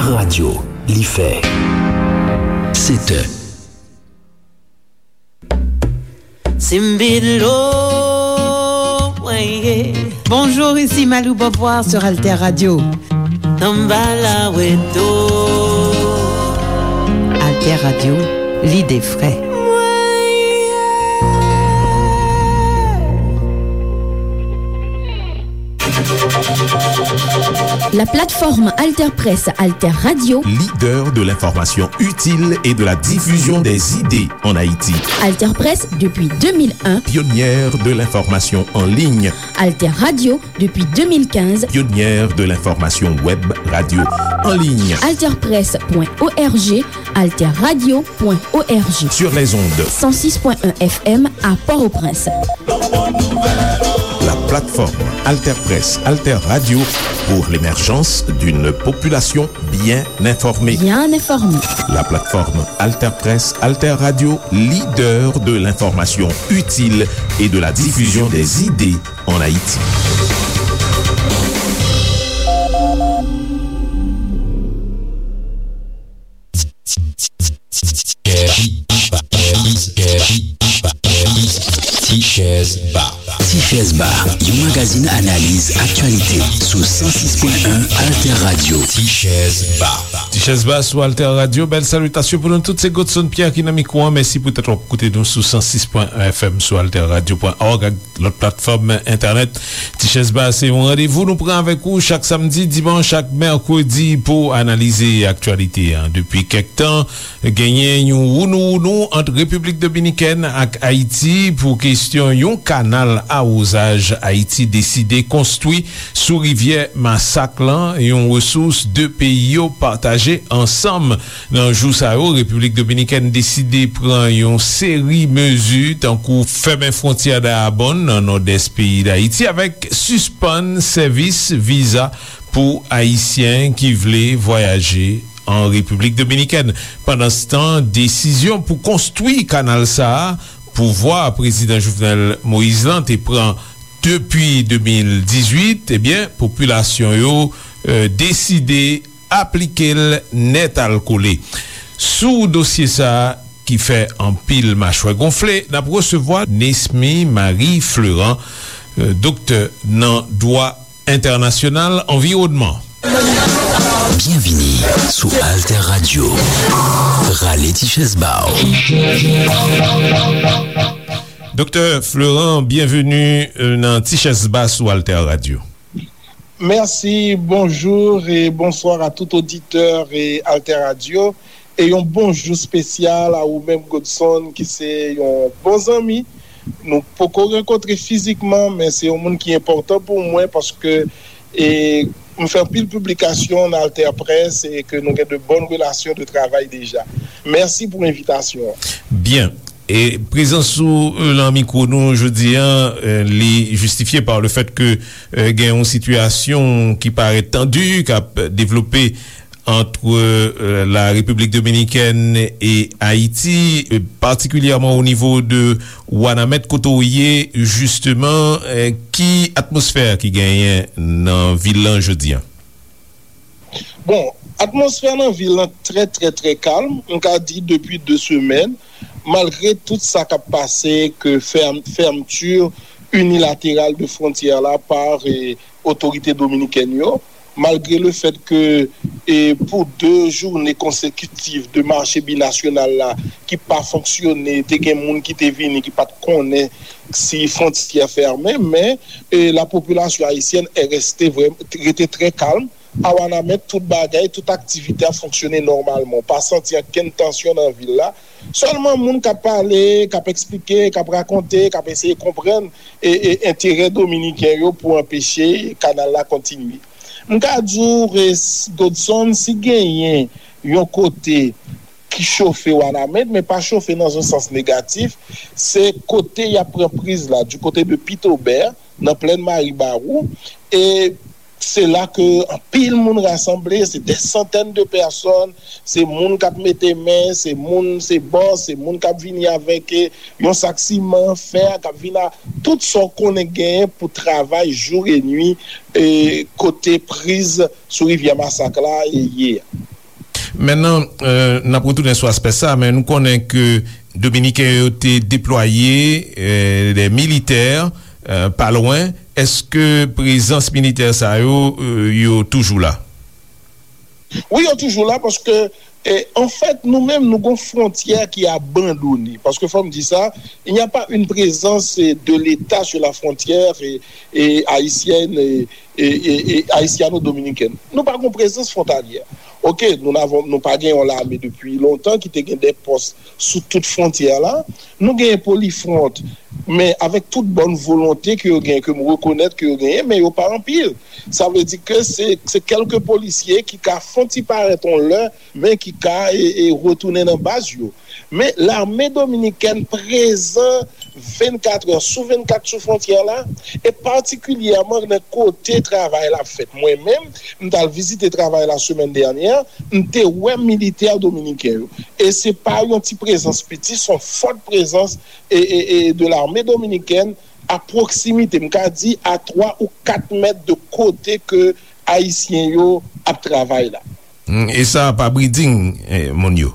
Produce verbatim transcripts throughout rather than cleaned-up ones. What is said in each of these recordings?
Radyo, li fè sèt è. Simbilo, mwen ye. Bonjour, ici Malou Beauvoir sur Alter Radio. Tanbala weto. Alter Radio, l'idée frais. Mwen ye. La plateforme Alterpresse Alter Radio. Leader de l'information utile et de la diffusion des idées en Haïti. Alterpresse depuis deux mille un. Pionnière de l'information en ligne. Alter Radio depuis deux mille quinze. Pionnière de l'information web radio en ligne. Alterpresse point org, alterradio point org. Sur les ondes. Cent six point un F M à Port-au-Prince. La plateforme Alterpresse Alter Radio pour l'émergence d'une population bien informée. Bien informée. La plateforme Alterpresse Alter Radio, leader de l'information utile et de la diffusion des idées en Haïti. Tichèz Ba. Tichèz Ba, yon magazin analiz aktyalite sou san sis pwen en Alter Radio. Tichèz Ba. Tichèz Ba sou Alter Radio. Bèl salitasyon pou nou tout. Se Godson Pierre ki nan mikwo an. Mèsi poutèt w ap koute nou sou san sis pwen en F M sou alter radio pwen org ak lòt platfòm entènèt. Tichèz Ba se yon randevou nou pran avèk ou chak samdi, dimanch ak mèkredi pou analize aktyalite an. Depi kèk tan, genyen yon wounou-wounou ant Repiblik Dominikèn ak Ayiti pou kesyon yon kanal awozaj Ayiti deside konstwi sou rivyè Masak lan, yon resous de peyi yo pataje ansanm. Nan jou sa yo, Repiblik Dominikèn deside pran yon seri mezi, tankou fèmen fwontyè Dayabonn, nan nòdès peyi Dayiti, avèk sispann sèvis viza pou Ayisyen ki vle vwayaje an Repiblik Dominikèn. Pandanstan, desizyon pou konstwi kanal sa a, pouvwa Prezidan Jovenel Moïse lan te pran depi de mil dizuit, ebyen, popilasyon yo, e, deside aplike l nètalkole. Sou dosye sa a ki fè anpil machwè gonfle, n ap resevwa Nesmy Marie Fleurant, e, doktè nan dwa entènasyonal anviwònman. Byenvini sou Alter Radio. Rale ti chèz ba w. Doktè Fleurant, byenveni, e, nan Ti Chèz Ba sou Alter Radio. Mèsi, bonjou e bonswa a tout oditè e Alter Radio. E yon bonjou espesyal a ou menm, Godson, ki se yon bon zanmi. Nou poko rankontre fizikman, men se yon moun ki enpòtan pou mwen paske, e, m fè anpil piblikasyon nan Alter Presse e ke nou gen de bòn relasyon de travay deja. Mèsi pou envitasyon an. Byen. E prezans ou, e, nan mikwo nou jodi a, e, li jistifye pa le fèt ke, e, gen yon sitiyasyon ki parèt tandi, k ap devlope ant, e, la Repiblik Dominikèn e Ayiti, e, patikilyèman o nivo de Wanament, kote w ye, jisteman, e, ki atmosfè ki genyen nan vil lan jodi a? Bon, atmosfè nan vil lan trè, trè, trè kalm. M ka di depi de semèn, malgre tout sa k ap pase, ke fèm-, fèmti inilateral de fwontyè la pa, e, otorite dominikèn yo, malgre le fèt ke, e, pou de jounen konsekitif de mache binasyonal la ki pa fonksyone, te gen moun ki te vini ki pa t konnen si fwontyè fèmen, men, e, la popilasyon ayisyèn rete vrè-, rete trè kalm. A Wanament, tout bagay, tout aktivite ap fonksyone nòmalman. Ou pa santi ankenn tansyon nan vil la. Sèlman moun k ap pale, k ap eksplike, k ap rakonte, k ap eseye konprann e, e enterè dominiken yo pou anpeche kanal la kontinye. M ka di w, e, Godson, si genyen yon kote ki chofe Wanament, men pa chofe nan yon sans negatif, se kote y ap pran priz la, du côté de Pitobè, nan plèn Maribawou, e se la ke anpil moun rasanble, se des centaines de personnes, se moun k ap mete men, se moun, se bòs, se moun k ap vini avèk, e, yon sak siman, fè, k ap vin a tout sa w konnen genyen pou travay jou e nwi, e, kote priz sou rivyè Masak la, e, ye a. Mennan, n ap retounen sou aspè sa, men nou konnen ke Dominiken yo te deplwaye de militè pa lwen. Èske prezans militè sa yo, yo toujou la? Wi, yo toujou la, paske, anfèt, nou menm, nou gon fwontyè ki abandone. Paske, fò m di sa, il n'y a pas une présence de l'État sur la frontière haïtienne et haïtiano-dominicaine. Nou pa gon prezans fwontalyè. Oke, nou n avon, nou pa gen yon lame depi lontan ki te gen de pòs sou tout fwontyè la. Nou genyen Polifront, men avèk tout bòn volonte ke yo genyen, ke m rekonèt ke yo genyen, men yo pa anpil. Sa vle di ke se, se kèlke polisye ki ka fon ti parèt yon lè, men ki ka e, e retounen nan baz yo. Men lame dominikèn prezan vennkat è sou vennkat sou fwontyè la, e patikilyèman nan kote travay la ap fèt. Mwen menm, m t al vizite travay la semèn dènyè, m te wè militè dominiken yo. E se pa yon ti prezans piti, se yon fòt prezans e, e, e de lame dominikèn a pwoksimite, m ka di a twa ou kat mèt de kote ke Ayisyen yo ap travay la. Hmm, e sa pa briding, eh, moun yo?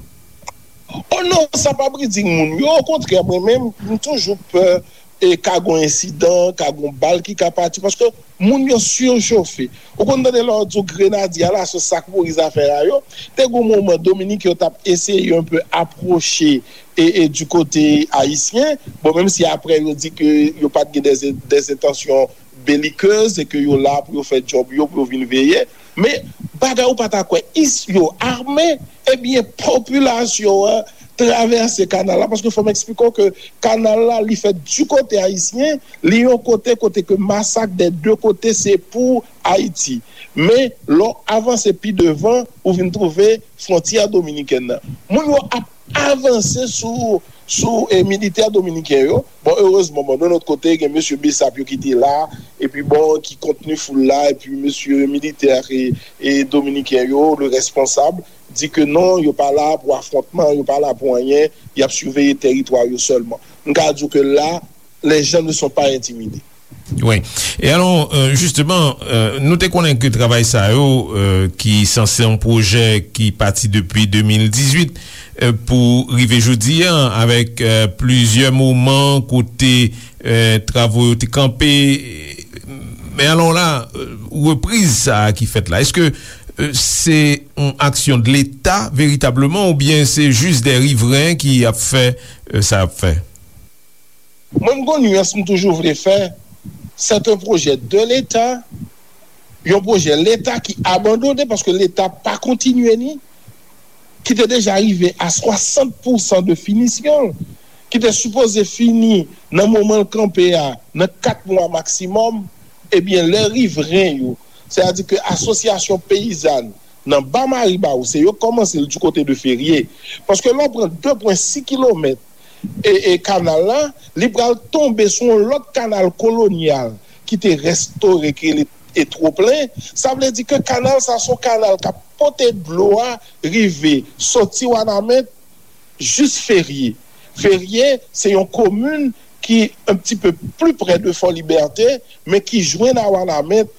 Oh non, sa pa briding moun yo. Okontrè, mwen menm, m toujou pè e ka gon ensidan, ka gon bal ki ka pati, paske moun yo sirechofe. Ou konn tande lè yo di w grenadye a la, se sa k mouri zafè a yo. Te gon moman Dominik yo t ap eseye yon pe apwoche e, e du kote ayisyen. Bon, menm si apre yo di ke yo pa t gen des, des entansyon belikez e ke yo la pou yo fè djòb yo, pou yo vin veye. Men, bagay ou pa ta kwè, is yo ame, ebyen, popilasyon an travèse kanal la, paske fò m eksplike w ke kanal la, li fèt di kote ayisyen, li yon kote, kote ke masak dè de kote se pou Ayiti. Men, lè w avanse pi devan, ou vin twouve fwontyè dominikèn nan. Moun yo ap avanse sou, sou, eh, militè dominiken yo. Bon, erezman, bon, de lòt kote, gen mesye Bessap yo ki te la, epi bon, ki kontni foul la, epi mesye militè e, e dominiken yo, le responsab, di ke non, yo pa la pou afwontman, yo pa la pou anyen, y ap siveye tèritwa yo sèlman. M ka di w ke la, les gens ne sont pas intimidés. Wi. E alò, euh, jisteman, euh, nou te konnen ke travay sa yo, euh, ki sanse yon pwojè ki pati depi de mil dizuit, euh, pou rive jodi a, avèk, euh, plizyè moman kote, euh, travo yo te kanpe. Men alò la, euh, repriz sa a ki fèt la, èske, euh, se yon aksyon de Leta veritableman oubyen se jis de rivren ki ap fè, euh, sa ap fè? Mwen, m gon nuance m toujou vle fè. C'est un projet de l'État, yon pwojè Leta ki abandone paske Leta pa kontinye ni, ki te deja rive a swasant pousan de finisyon l, ki te sipoze fini nan moman l kanpe a, nan kat mwa maksimòm, ebyen, lè rivren yo, sètadi ke asosyasyon peyizàn nan Ba Maribawou, se yo k kòmanse l di kote de Ferye. Paske lè w pran de pwen sis kilomèt e, e kanal la, li pral tonbe sou yon lòt kanal kolonyal ki te restore, ki rele e twoplen. Sa vle di ke kanal sa se yon kanal k ap pote dlo a rive soti Wanament jis Ferye. Ferye se yon komin ki un petit peu plus près de Fort Liberté, men ki jwenn a Wanament,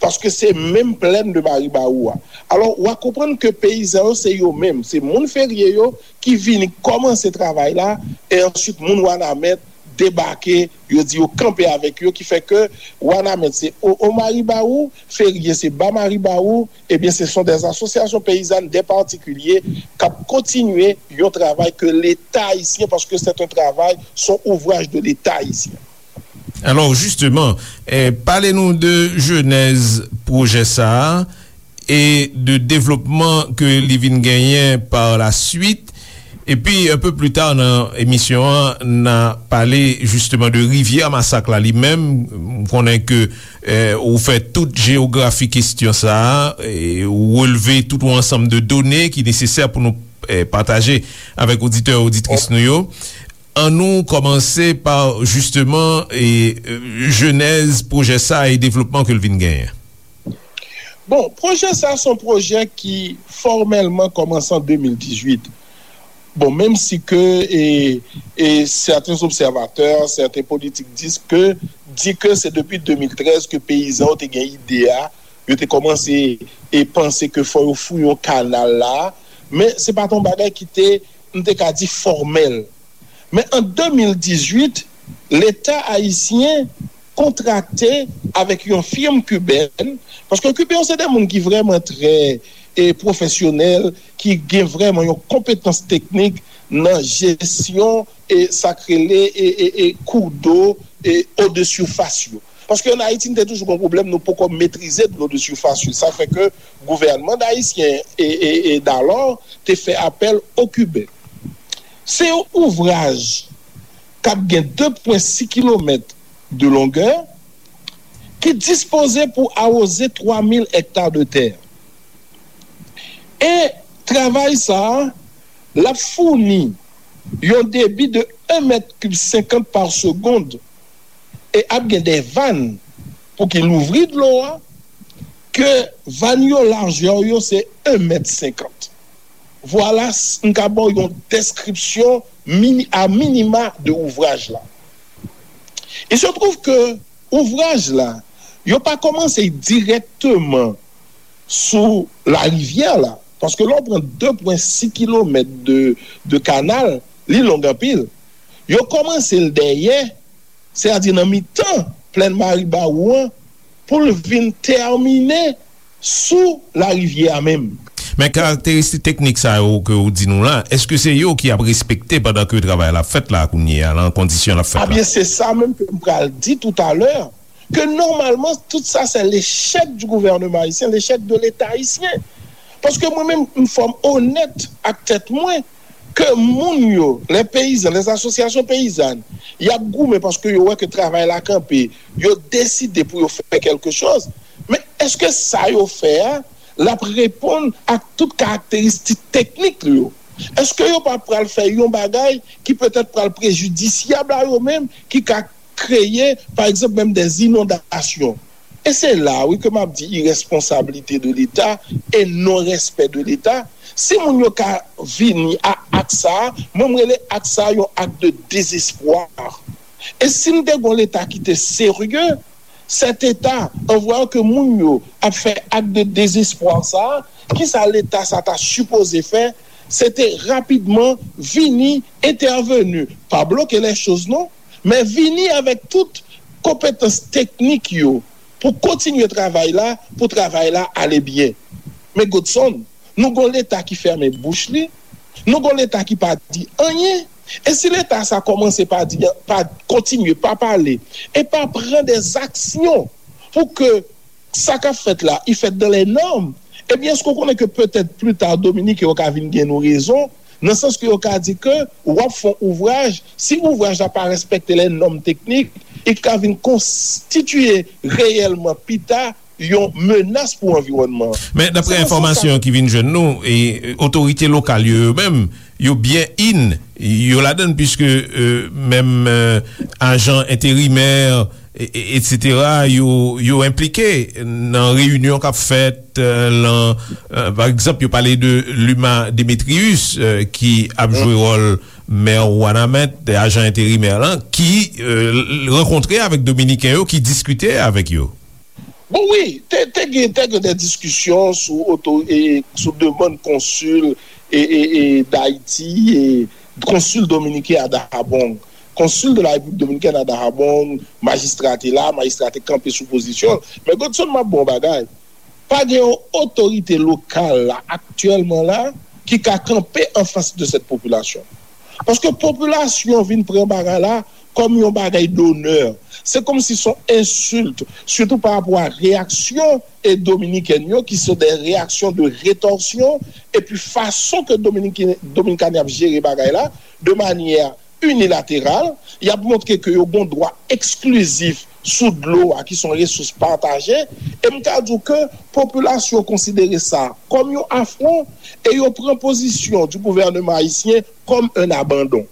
paske se menm plèn de Maribawou a. Alò, w a konprann ke peyizan yo, se yo menm, se moun Ferye yo ki vini kòmanse travay la, e answit moun Wanament debake, yo di yo kanpe avèk yo, ki fè ke Wanament se o, o Maribawou, Ferye se Ba Maribawou, ebyen, se sont des associations paysannes, des particuliers k ap kontinye yon travay ke Leta ayisyen, paske c'est un travail, son ouvraj de Leta ayisyen. Alò, jisteman, eh, pale nou de jenèz pwojè sa a e de devlopman ke li vin genyen par la suite. Epi, un peu plus tard nan emisyon an, n a pale jisteman de rivyè Masak la li menm. M konnen ke, eh, ou fè tout jeyografi kesyon sa a, e ou relve tout yon ansanm de done ki nesesè pou nou, eh, pataje avèk oditè, oditris nou yo. An nou kòmanse pa, jisteman, e, e, jenèz pwojè sa a e devlopman ke l vin genyen. Bon, pwojè sa a se yon pwojè ki fòmèlman kòmanse an de mil dizuit. Bon, menm si ke, e, e sèten obsèvatè, sèten politik di ke, di ke se depi de mil trèz ke peyizan yo te gen ide a, yo te kòmanse e panse ke fò yo fouye yon kanal la, men se pa t yon bagay ki te, m te ka di, fòmèl. Men an de mil dizuit, Leta ayisyen kontrakte avèk yon fim kibèn, paske Kiben yo se de moun ki vrèman trè e pwofesyonèl, ki gen vrèman yon konpetans teknik nan jesyon e sa k rele e, e, e kou dlo e eau de surface yo. Paske ann Ayiti, n te toujou gen pwoblèm, nou poko metrize dlo de surface yo. Sa fè ke gouvènman ayisyen e, e, e dalò te fè apèl o Kiben. Se yon ouvraj k ap gen de pwen sis kilomèt de longè ki dispoze pou awoze twa mil ekta de tè. E travay sa a, l ap founi yon debi de en mèt kib senkant pa segonn e ap gen de vàn pou ki louvri dlo a, ke vàn yo lajè yo se en mèt senkant. Vwala, m ka ba w yon deskripsyon mini, a minima de ouvraj la. Il se trouve que ouvraj la, yo pa kòmanse dirèkteman sou larivyè la, paske lè w pran de pwen sis kilomèt de, de kanal, li long anpil. Yo kòmanse l dèyè, sètadi nan mitan plèn Maribawou an, pou l vin tèmine sou larivyè a menm. Men karakteristik teknik sa yo ke w di nou la, èske se yo ki ap respekte pandan ke travay la ap fèt la kounye a, nan kondisyon l ap fèt la? Abyen, se sa menm ke m pral di toutalè, ke nòmalman, tout sa, se lechèk di gouvènman ayisyen, lechèk de Leta ayisyen. Paske mwen menm, m fò m onèt ak tèt mwen, ke moun yo, lè peyizan, lè asosyasyon peyizàn, y ap goumen paske yo wè ke travay la kanpe, yo deside pou yo fè kèlke chòz. Men èske sa yo fè a, l ap reponn ak tout karakteristik teknik li yo? Èske yo pa pral fè yon bagay ki petèt pral prejidisyab a yo menm, ki ka kreye, pa egzanp, menm dè inondasyon? E se la, wi, ke m ap di irèsponsablite de Leta e non respè de Leta. Si moun yo ka vini a ak sa a, mwen, m rele ak sa a yon ak de dezespwa. E si n te gon Leta ki te serye, sèt Eta, an vwayan ke moun yo ap fè ak de dezespwa sa a, kisa Leta sa ta sipoze fè? Se te rapidman vini entèveni, pa bloke lè choz non, men vini avèk tout konpetans teknik yo pou kontinye travay la, pou travay la ale byen. Men Godson, nou gon Leta ki fèmen bouch li, nou gon Leta ki pa di anyen. E si Leta sa kòmanse pa di, pa kontinye, pa pale, e pa pran dè aksyon pou ke sa k ap fèt la, i fèt dans les normes, ebyen, èske w konnen ke petèt pli ta, Dominiken yo ka vin gen nou rezon, nan sans ke yo ka di ke w ap fè yon ouvraj, si ouvraj la pa respekte les normes techniques, i ka vin konstitiye reyèlman pita yon menas pou anviwònman an. Men daprè enfòmasyon ki vin jwenn nou, e, otorite lokal yo, yo menm, yo byen in, yo ladann, piske, e, menm, e, ajan enterimè, e, e, etsetera, yo, yo enplike nan reyinyon k ap fèt, e, lan, e, pa egzanp, yo pale de Luma Demetrius, e, ki ap jwe wòl mè Wanament, ajan enterimè lan, ki, e, rankontre avèk Dominiken yo, ki diskite avèk yo. Bon, wi, te, te gen, te gen de diskisyon sou oto, e, sou demann konsil, e, e, e, Dayiti, e, konsil dominiken a Dajabong. Konsil de la Repiblik Dominikèn a Dajabong, majistra te la, majistra te kanpe sou pozisyon l. Men Godson, m ap bon bagay. Pa gen yon otorite lokal la, aktyèlman la, ki ka kanpe anfas de cette population. Paske popilasyon vin pran bagay la kòm yon bagay donè. Se kòmsi se yon ensilt, sitou pa rapò a reyaksyon e dominikèn yo, ki se de reyaksyon de retòsyon, epi fason ke Dominiken, Dominiken ap jere bagay la, de manyè inilateral, y ap montre ke yo gon dwa eksklizif sou dlo a, ki se yon resous pataje, e m ka di w ke popilasyon konsidere sa kòm yon afwon, e yo pran pozisyon di gouvènman ayisyen kòm un abandon.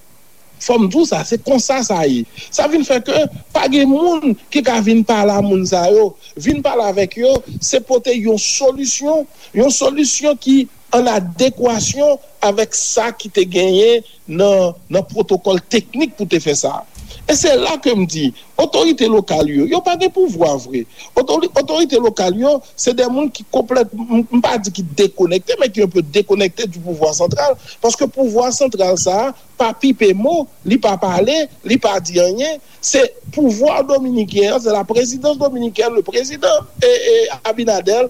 Fò m di w sa, se konsa sa ye. Sa vin fè ke pa gen moun ki ka vin pale a moun sa yo, vin pale avèk yo, se pote yon solisyon, yon solisyon ki an adekwasyon avèk sa ki te genyen nan, nan pwotokòl teknik pou te fè sa. E se la ke m di, otorite lokal yo, yo pa gen pouvwa vre. Otori- otorite lokal yo, se de moun ki konplèt, m m pa di ki dekonekte, men ki un peu déconnecté du pouvoir central. Paske pouvwa santral sa a pa pipe mo, li pa pale, li pa di anyen. Se pouvwa dominiken an, se la présidence dominicaine, le président e, e Abinader,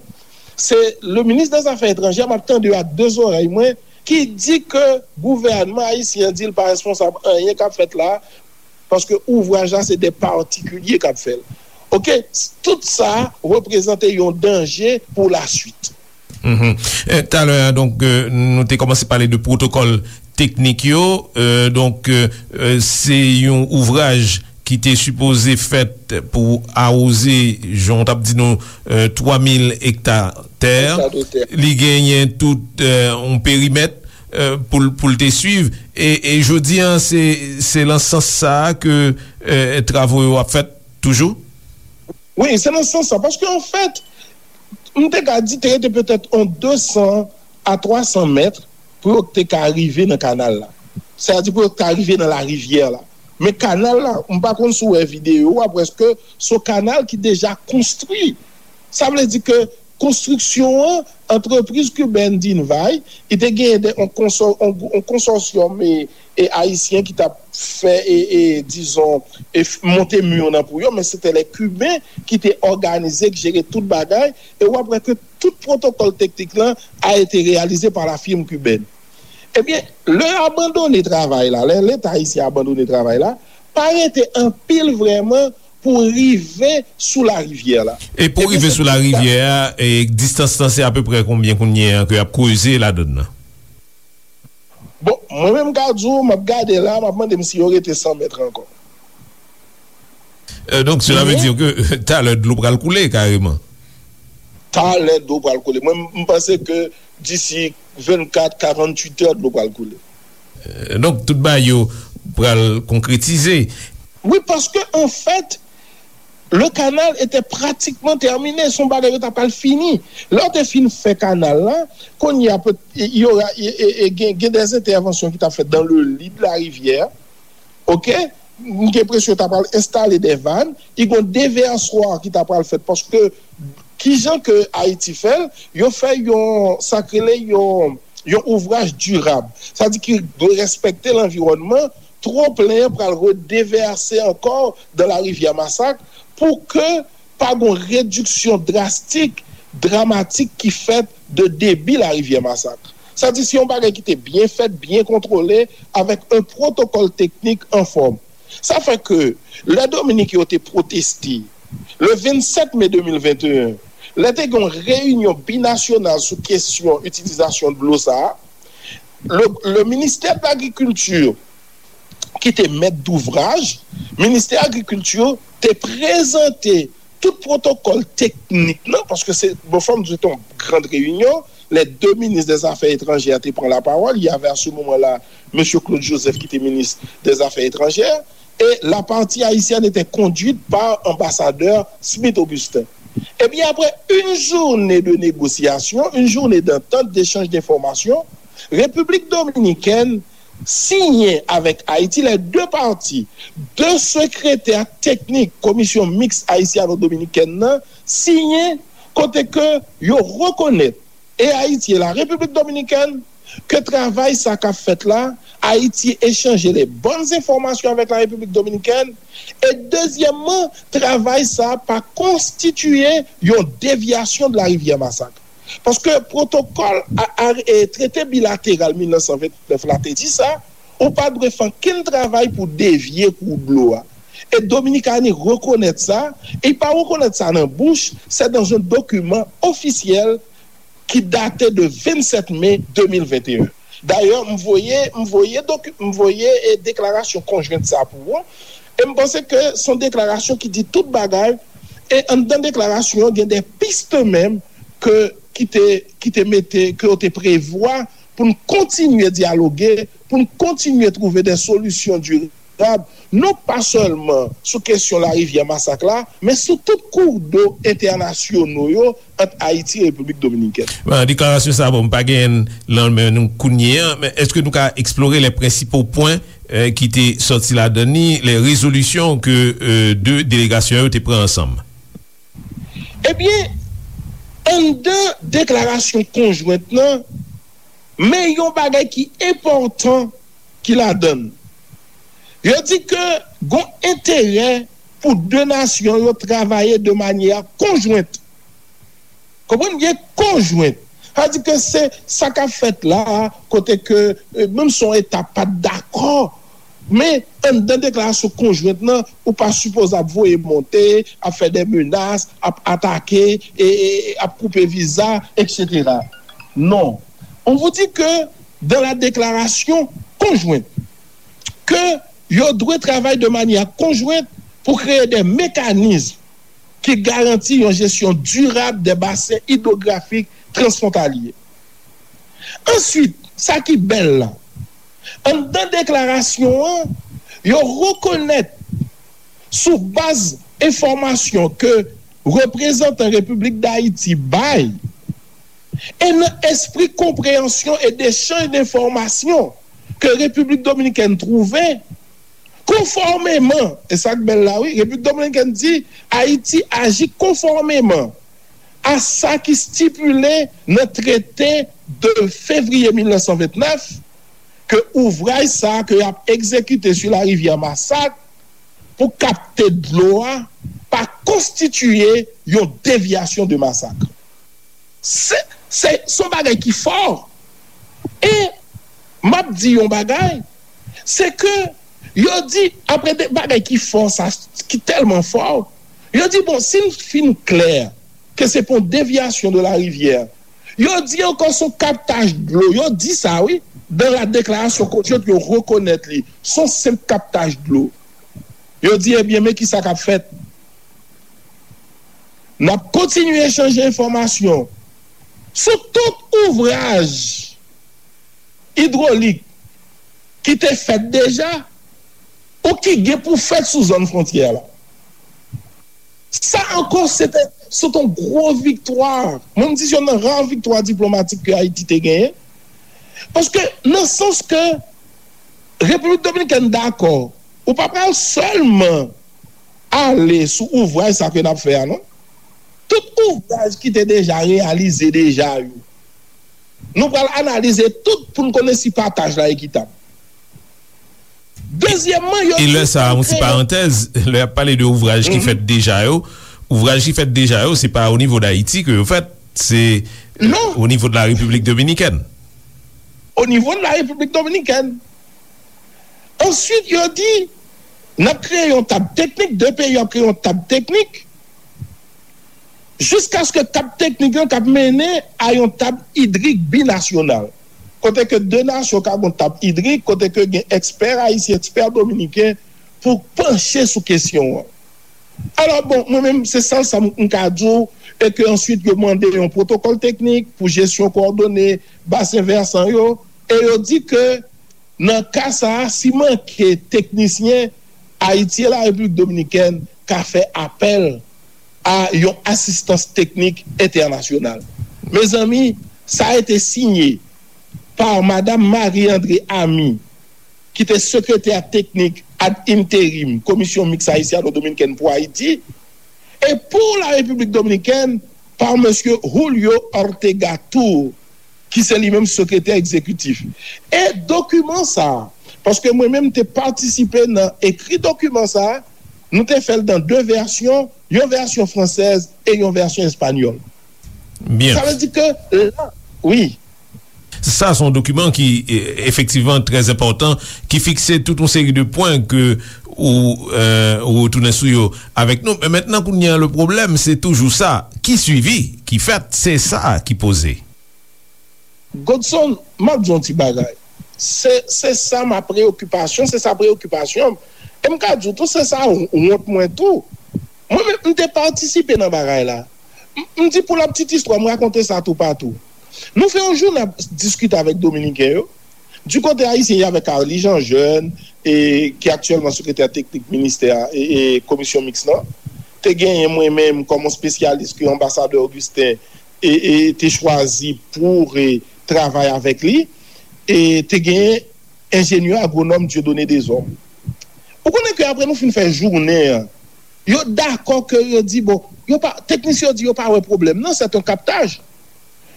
se le ministre des Affaires étrangères, m ap tande yo ak de zòrèy mwen, ki di ke gouvènman ayisyen an di l pa responsab anyen k ap fèt la, paske ouvraj la se de patikilye k ap fè l. Oke, tout sa reprezante yon danje pou laswit. Talè a, donk, nou te kòmanse pale de pwotokòl teknik yo. Donk, se yon ouvraj ki te sipoze fèt pou awoze, jan w t ap di nou, twa mil ekta tè. Li genyen tout yon perimèt pou l te swiv. E jodi a, se nan sans sa a ke travo yo ap fèt toujou? Wi, se nan sans sa. Paske, anfèt, m te ka di te rete petèt yon de san a twa san mèt pou yo te ka rive nan kanal la. Sètadi pou yo te ka rive nan larivyè la. Men kanal la, m pa konn si w wè videyo a, prèske se yon kanal ki deja konstwi. Sa vle di ke konstriksyon an, antrepriz kibèn Dinvay, li te genyen de, yon konsò- yon, yon konsòsyòm e, e ayisyen ki t ap fè, e, e, dizon, e f- monte mi nan pou yo, men se te lè Kiben ki te òganize, ki jere tout bagay, e w ap wè ke tout pwotokòl teknik lan a ete reyalize pa la firme cubaine. Ebyen, lè yo abandone travay la, lè Leta ayisyen abandone travay la, pa rete anpil vrèman pou rive sou larivyè la. E pou rive sou larivyè a, e distans lan se apeprè konbyen kounye a ke y ap kreze ladann nan? Bon, mwen menm m ka di w, m ap gade la, m ap mande m si yo rete san mèt ankò. Donk, sela vle di ke talè dlo pral koule kareman. Talè dlo pral koule. Mwen, m panse ke disi vennkat, karanntuit è, dlo pral koule. Donk, tout bagay yo pral konkretize. Wi, paske, anfèt, le canal était pratiquement terminé, se yon bagay yo ta pral fini. Lè yo te fin fè kanal la, kounye a, pe- y aura- y- y- y- gen, gen des interventions ki t ap fèt dans le lit de la rivière. Oke? M gen enpresyon yo ta pral enstale de vann, y gon devèswa ki ta pral fèt, paske kijan ke Ayiti fè l, yo fè yon, sa k rele yon, yon ouvraj dirab. Sa di ki dwe respekte lanviwònman, twonplen an pral redevèse ankò dans la rivière Massacre pou ke pa gon rediksyon drastik, dramatik ki fèt de debi larivyè Massacre. Sa di se yon bagay ki te byen fèt, byen kontwole, avèk un protokòl teknik anfòm. Sa fè ke lè Dominiken yo te pwoteste le vennsèt me de mil venteyen, lè te gen yon reyinyon binasyonal sou kesyon itilizasyon dlo sa a, le, le ministè de lagrikilti ki te mèt douvraj, ministè agrikilti te prezante tout pwotokòl teknik nan, paske se, bon, fò m di w, se te yon gran reyinyon, les deux ministres des Affaires étrangères te pran lapawòl, il y avait à ce moment-là mesye Claude Joseph ki te minis des Affaires étrangères, et la partie haïtienne était conduite par ambassadeur Smith Augustin. Eh bien, après une journée de négociation, une journée d'entente, d'échange d'informations, République dominicaine siyen avèk Ayiti, les deux parties, de sekretè teknik Komisyon Miks Ayisyano-Dominikèn nan siyen, kote ke yo rekonèt, et Haïti et la République dominicaine, ke travay sa k ap fèt la, Ayiti echanje les bonnes informations avec la République dominicaine, e dezyèmman, travay sa pa konstitiye yon devyasyon de la rivière Massacre. Paske pwotokòl a, a, e trete bilateral mil nèf san vennnèf la te di sa, ou pa dwe fè ankenn travay pou devye kou dlo a. E Dominikani rekonèt sa, e pa rekonèt sa nan bouch, se dans un document officiel ki date de vennsèt me de mil venteyen. Dayè, m voye, m voye doki- m voye e deklarasyon konjwent sa pou ou. E m panse ke se yon deklarasyon ki di tout bagay. E anndan deklarasyon an, gen de piste menm ke ki te ki te mete, ke yo te prevwa pou n kontinye dyaloge, pou n kontinye twouve de solisyon dirab, non pa sèlman sou kesyon larivyè Masak la, men sou tout koudou entènasyonal yo ant Ayiti e Repiblik Dominikèn. Bon, deklarasyon sa, bon, m pa genyen l nan men nou kounye a, men èske nou ka eksplore les principaux points eh, ki te sòti ladan li, les résolutions ke, eh, de delegasyon yo te pran ansanm? Ebyen, anndan deklarasyon konjwent lan, men yon bagay ki enpòtan ki ladan l. Yo di ke gon enterè pou de nasyon yo travay de manyè konjwent. Konprann byen, konjwent. Sa di ke se sa k ap fèt la, kote ke, eh, menm si yon eta pa t dakò, men anndan deklarasyon konjwent lan, ou pa sipoze ap voye monte, ap fè de menas, ap atake, e, e, e ap koupe viza, et cetera. Non. On vous dit que dans la déclaration conjointe, que yo dwe travay de manyè konjwent pou kreye de mekanizm ki garanti yon jesyon dirab de basen idwografik transfwontalye. Answit, sa ki bèl la, anndan deklarasyon an, yo rekonèt sou baz enfòmasyon ke reprezantan Repiblik Dayiti bay, e nan espri konpreyansyon e dechanj de enfòmasyon ke Repiblik Dominikèn twouve, konfòmeman, e sa k bèl la wi, Repiblik Dominikèn di Ayiti aji konfòmeman a sa ki stipile nan trete de fevriye mil nèf san vennèf, ke ouvraj sa a ke y ap egzekite sou larivyè Masak pou kapte dlo a pa konstitiye yon devyasyon de Masak. Se, se, se yon bagay ki fò. E m ap di yon bagay, se ke yo di, apre de bagay ki fò sa, ki tèlman fò, yo di, bon, si n fin klè ke se pa yon devyasyon de larivyè, yo di ankò se yon kaptaj dlo, yo di sa, wi, dans la déclaration conjointe, yo rekonèt li, se yon senp kaptaj dlo. Yo di, ebyen, men ki sa k ap fèt? N ap kontinye echanje enfòmasyon sou tout ouvraj idwolik ki te fèt deja ou ki gen pou fèt sou zòn fwontyè la. Sa ankò, se te, se te yon gwo viktwa. Mwen, m di se youn nan ra viktwa diplomatik ke Ayiti te genyen. Paske, nan sans ke Repiblik Dominikèn dakò, ou pa pral sèlman ale sou ouvraj sa ke n ap fè a, non. Tout ouvraj ki te deja reyalize deja yo, nou pral analize tout pou n konnen si pataj la ekitab. Dezyèmman, yo... E lè sa a, yon ti parantèz, lè y ap pale de ouvraj ki fèt deja yo, ouvraj ki fèt deja yo, se pa o nivo d Ayiti ke yo fèt, se, euh, o nivo de la Repiblik Dominikèn. O nivo de la Repiblik Dominikèn. Answit, yo di, n ap kreye yon tab teknik, de peyi yo ap kreye yon tab teknik, jiskaske tab teknik lan k ap mennen a yon tab idrik binasyonal, kote ke de nasyon ka gen yon tab idrik, kote ke gen ekspè ayisyen, ekspè dominiken pou panche sou kesyon an. Alò, bon, mwen menm, se sèl sa m, m ka di w, e ke answit yo mande yon pwotokòl teknik pou jesyon kowòdone basen vèsan yo, e yo di ke nan ka sa a, si manke teknisyen, Ayiti e la Repiblik Dominikèn ka fè apèl a yon asistans teknik entènasyonal. Mezanmi, sa a été signé par Madame Marie André Amy, ki te sekretè teknik ad interim Komisyon Miks Ayisyano-Dominikèn pou Ayiti, e pou la Repiblik Dominikèn, pa mesye Julio Ortega Tur, ki se li menm sekretè egzekitif. E dokiman sa a, paske mwen menm te patisipe nan ekri dokiman sa a, nou te fè l nan de vèsyon, yon vèsyon fransèz e yon vèsyon espanyòl. Byen. Sa vle di ke la, wi. Sa se yon dokiman ki, e, efektivman trè enpòtan, ki fikse tout yon seri de pwen ke ou, e, ou retounen sou yo avèk nou. Men mentnan, kounye a, le pwoblèm, se toujou sa. Ki swivi ki fèt, se sa ki poze. Godson, m ap di yon ti bagay. Se, se sa ma preyokipasyon, se sa preyokipasyon m. E m ka di w tou, se sa wont mwen tou. Mwen menm, m te patisipe nan bagay la. M, m di pou la petite histoire, m rakonte sa toupatou. Nou fè yon jounen ap diskite avèk Dominiken yo. Du kote ayisyen, y avè Carly Jean Jeune, e, ki aktyèlman sekretè teknik ministè, e, e, komisyon miks lan. Te genyen mwen menm kòm yon espesyalis ke anbasadè Augustin, e, e, te chwazi pou, e, travay avèk li. E te genyen enjenyè agwonòm Dieudonné Deshommes. Ou konnen ke apre nou fin fè jounen an, yo dakò ke yo di, bon, yo pa, teknisyen yo di yo pa wè pwoblèm nan, c'est un captage.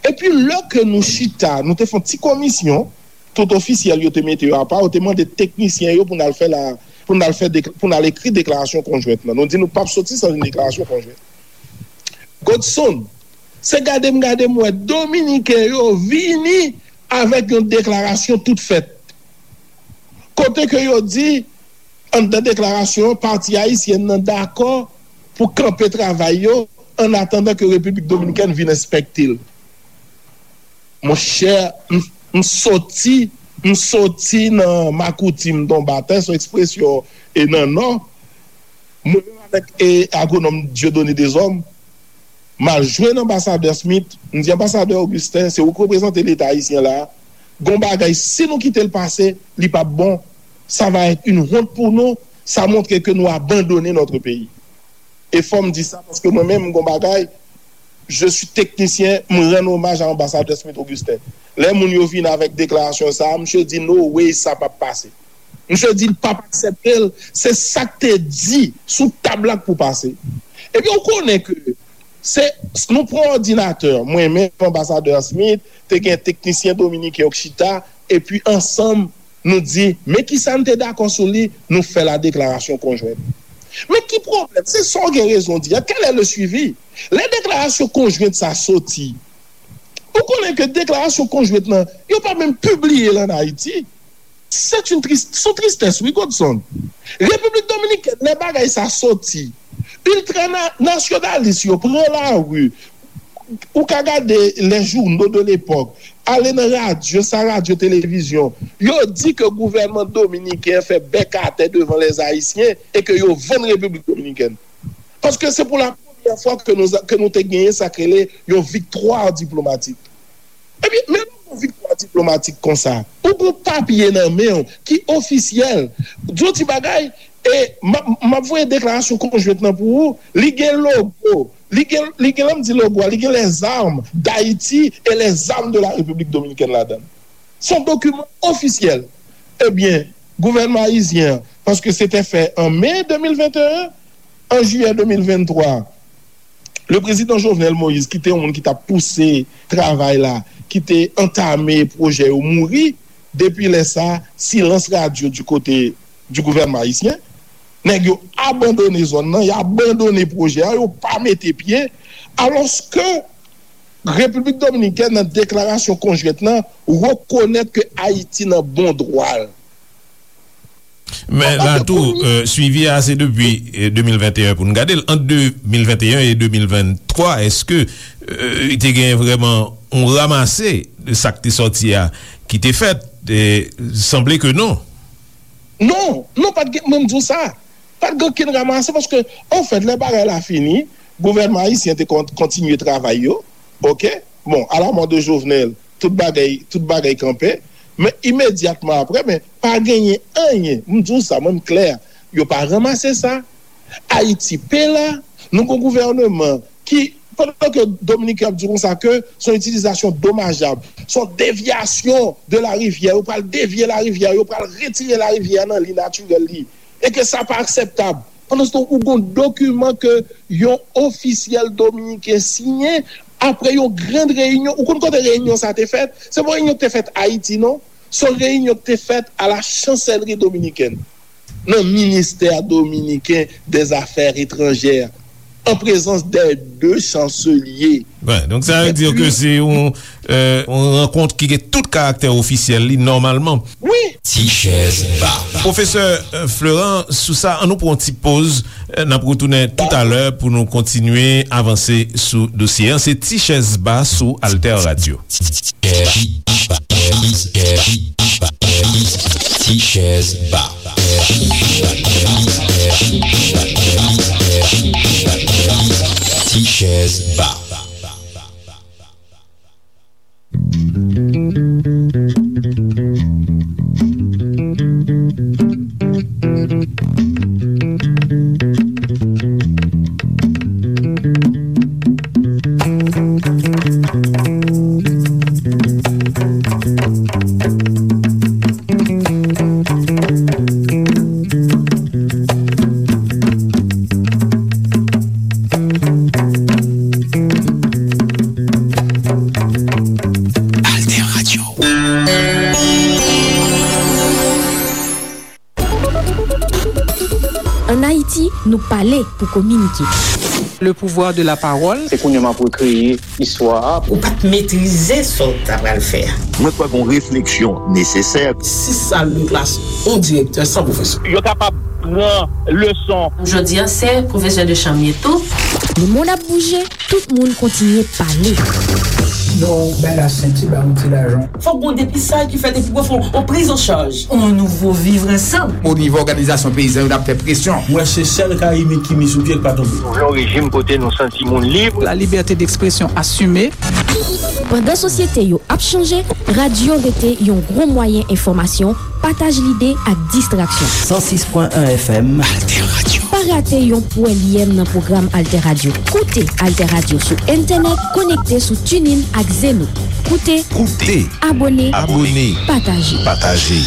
Epi lè ke nou chita, nou te fè yon ti komisyon, tout ofisyèl yo te mete yo apa, yo te mande teknisyen yo pou n al fè la, pou n al fè dek-, pou n al ekri deklarasyon konjwent lan. Nou di nou p ap soti san yon deklarasyon konjwent. Godson, se gade m gade m wè Dominiken yo vini avèk yon deklarasyon tout fèt. Kote ke yo di, anndan deklarasyon an, pati ayisyèn nan dakò pou kanpe travay yo, an atandan ke Repiblik Dominikèn vin enspekte l. Monchè, m, m soti, m soti nan makouti, m tonbe atè, se yon ekspresyon e nan Nò. Mwen menm avèk e, agwonòm Dieudonné Deshommes, m al jwenn Anbasadè Smith, m di, Anbasadè Augustin, se ou k reprezante Leta ayisyen la. Gon bagay, si nou kite l pase, li p ap bon. Ça va être une honte pour nous. Ça montre que nous abandonnons notre pays. E fò m di sa, paske mwen menm, gon bagay, je suis technicien, m rann omaj a Anbasadè Smith Augustin. Lè moun yo vin avèk deklarasyon sa a, misye di, no way, sa p ap pase. Misye di l p ap aksepte l, se sa k te di sou tab la k pou pase. Ebyen, ou konnen ke se, nou pran òdinatè, mwen menm, Anbasadè Smith, te gen teknisyen dominiken yo k chita, epi ansanm, nou di, men kisa n te dakò sou li, nou fè la deklarasyon konjwent. Men ki pwoblèm? Se sa w gen rezon di a. Quel est le suivi? Lè deklarasyon konjwent sa soti, ou konnen ke deklarasyon konjwent lan, yo pa menm pibliye l ann Ayiti. C'est une triste, sou tristès, wi, Godson. Repiblik Dominikèn, lè bagay sa soti, iltranasyonalis yo pran lari. Ou ka gade les journaux de l'époque, ale nan radyo, sa radyo, televizyon. Yo di ke gouvènman dominiken an fè bèk atè devan les Haïtiens e ke yo vann Repiblik Dominikèn. Paske se pou la premyè fwa ke nou, ke nou te genyen sa k rele yon viktwa diplomatik. Ebyen, men yon viktwa diplomatik konsa. Ou gon papye nan men w ki ofisyèl. Di yon ti bagay, e m ap, m ap voye deklarasyon konjwent lan pou ou. Li gen logo. Li gen, li gen, lè m di logo a, li gen les armes d'Haïti et les armes de la République dominicaine ladan l. Se yon dokiman ofisyèl. Ebyen, gouvènman ayisyen an, paske se te fè an me de mil venteyen, an jiyè de mil venntwa, le président Jovenel Moïse, ki te yon moun ki t ap pouse travay la, ki te antame pwojè yo mouri, depi lè sa, silans radyo di kote di gouvènman ayisyen. Nèg yo abandone zòn nan, y abandone pwojè a, yo pa mete pye, alòske Repiblik Dominikèn, nan deklarasyon konjwent lan, rekonèt ke Ayiti nan bon dwa l. Men la tou, euh, swivi a se depi, euh, de mil venteyen pou n gade l. Ant de mil venteyen e de mil venntwa, èske, euh, te gen vrèman yon ranmase de sa k te sòti a ki te fèt? E sanble ke non. Non, non, pa t gen, mwen m di w sa. Pa t gen okenn ranmase paske, anfèt, lè bagay la fini, gouvènman ayisyen te kon-, kontinye travay yo. Oke? Bon, à la mort de Jovenel, tout bagay, tout bagay kanpe. Men imedyatman apre, men pa genyen anyen. M di w sa, mwen m klè. Yo pa ranmase sa. Ayiti pe la. Nou gon gouvèneman ki, pandan ke Dominiken ap di konsa ke se yon itilizasyon domajab, se yon devyasyon de la rivyè, yo pral devye la rivyè, yo pral retire la rivyè nan li natirèl li, e ke sa pa akseptab. Pandan se tan, ou gon dokiman ke yon ofisyèl dominiken siyen apre yon grand reyinyon. Ou konn kote reyinyon sa te fèt? Se pa yon reyinyon ki te fèt Ayiti, non. Se yon reyinyon ki te fèt à la Chancellerie dominicaine, nan ministè dominiken des affaires étrangères, en présence des deux chanceliers. Wi, donk sa vle di ke se yon, euh, yon rankont ki gen tout karaktè ofisyèl li nòmalman. Wi. Ti chèz ba. Pwofesè, euh, Florent, sou sa, an nou pran yon ti poz, euh, n ap retounen toutalè pou nou kontinye avanse sou dosye an. Se Ti chèz ba sou Alter Radio. Ti chèz ba. Ti chèz ba. Si nou pale pou kominike. Le pouvoir de la parole. Se kounye a m ap rekreye istwa a. Ou pa t metrize sa w ta pral fè a. Mwen kwè gen yon refleksyon nesesè. Sis sal de klas, yon direktè san pwofesè. Yo kapab pran leson. Jodi a, se pwofesè de chanm ye tou. Le monde ap bouje, tout moun kontinye pale. Non, bay la senti, ba yon ti lajan. Fòk gon depistaj ki fèt epi pou fè yon priz an chaj. On nouvo vivre ansanm. O nivo òganizasyon peyizan yo, n ap fè presyon. Mwen se sèl Karibyen ki met sou pye k pa tonbe. Nou vle yon rejim kote nou santi moun lib. La liberté d'expression assumée. Pandan sosyete yo ap chanje, radyo rete yon gwo mwayen enfòmasyon, pataj lide ak distraksyon. San sis pwen en F M. Alter Radio. Pa rate yon pwèlyèm nan pwogram Alter Radio. Koute Alter Radio sou entènèt, konekte sou TuneIn ak Zeno. Koute, Koute. Abone, Abone. Pataje. Pataje.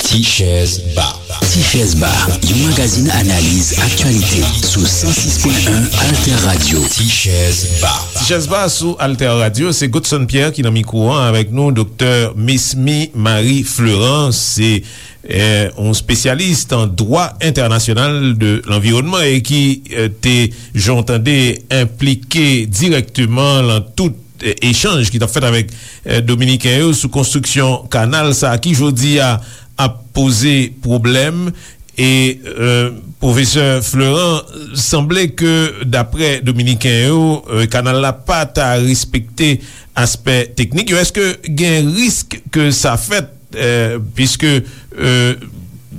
Ti Chèz Ba. Ti Chèz Ba, yon magazin analiz aktyalite sou san sis pwen en Alter Radio. Ti Chèz Ba. Ti Chèz Ba sou Alter Radio, se Godson Pierre ki nan mikwo an avèk nou, Doktè Mesmy Marie Fleurant, se, eh, yon spesyalis an dwa entènasyonal de lanviwònman e ki, eh, te, jan w tande, enplike dirèkteman lan tout, eh, echanj ki t ap fèt avèk, eh, Dominiken yo sou konstriksyon kanal sa a ki jodi a ap poze pwoblèm. E, eh, pwofesè Fleurant, sanble ke daprè Dominiken yo, eh, kanal la pa ta respekte aspè teknik yo. Èske gen risk ke sa fèt, eh, piske, eh,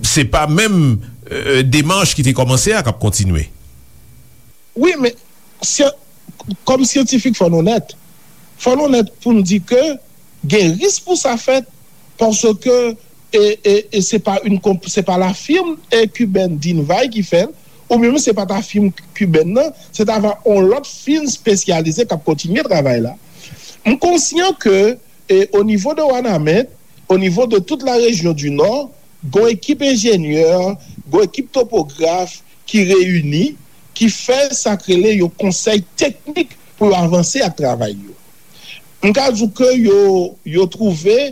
se pa menm, eh, demach ki te kòmanse a k ap kontinye? Wi, men syan-, kòm syantifik, fò n onèt. Fò n onèt pou n di ke gen risk pou sa fèt, paske, e, e, e se pa yon konp-, se pa la firm, e, kibèn Dinvay ki fè l, oubyen menm se pa ta firm kibèn nan, se ta va yon lòt firm espesyalize k ap kontinye travay la. M konsyan ke, e, o nivo de Wanament, o nivo de tout la région du Nord, gon ekip enjenyè, gon ekip topograf ki reyini, ki fè sa k rele yon konsèy teknik pou yo avanse ak travay yo. M ka di w ke yo, yo twouve,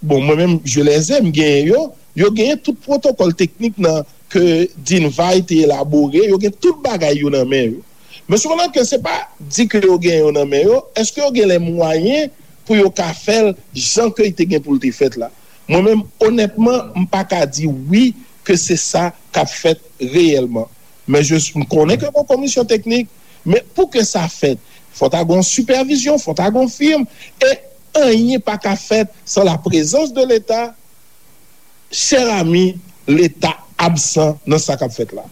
bon, mwen menm, je les ai, m genyen yo, yo genyen tout pwotokòl teknik nan ke Dinvay te elabore, yo gen tout bagay yo nan men yo. Men sepandan ke se pa di ke yo gen yo nan men yo, èske yo gen lè mwayen pou yo ka fè l jan ke li te gen pou l te fèt la? Mwen menm, onètman, m pa ka di wi ke se sa k ap fèt reyèlman. Men je, m konnen ke gon komisyon teknik, men pou ke sa fèt, fò ta gon sipèvizyon, fò ta gon firm, e anyen pa ka fèt san la prezans de Leta. Chè ami, Leta absan nan sa k ap fèt la.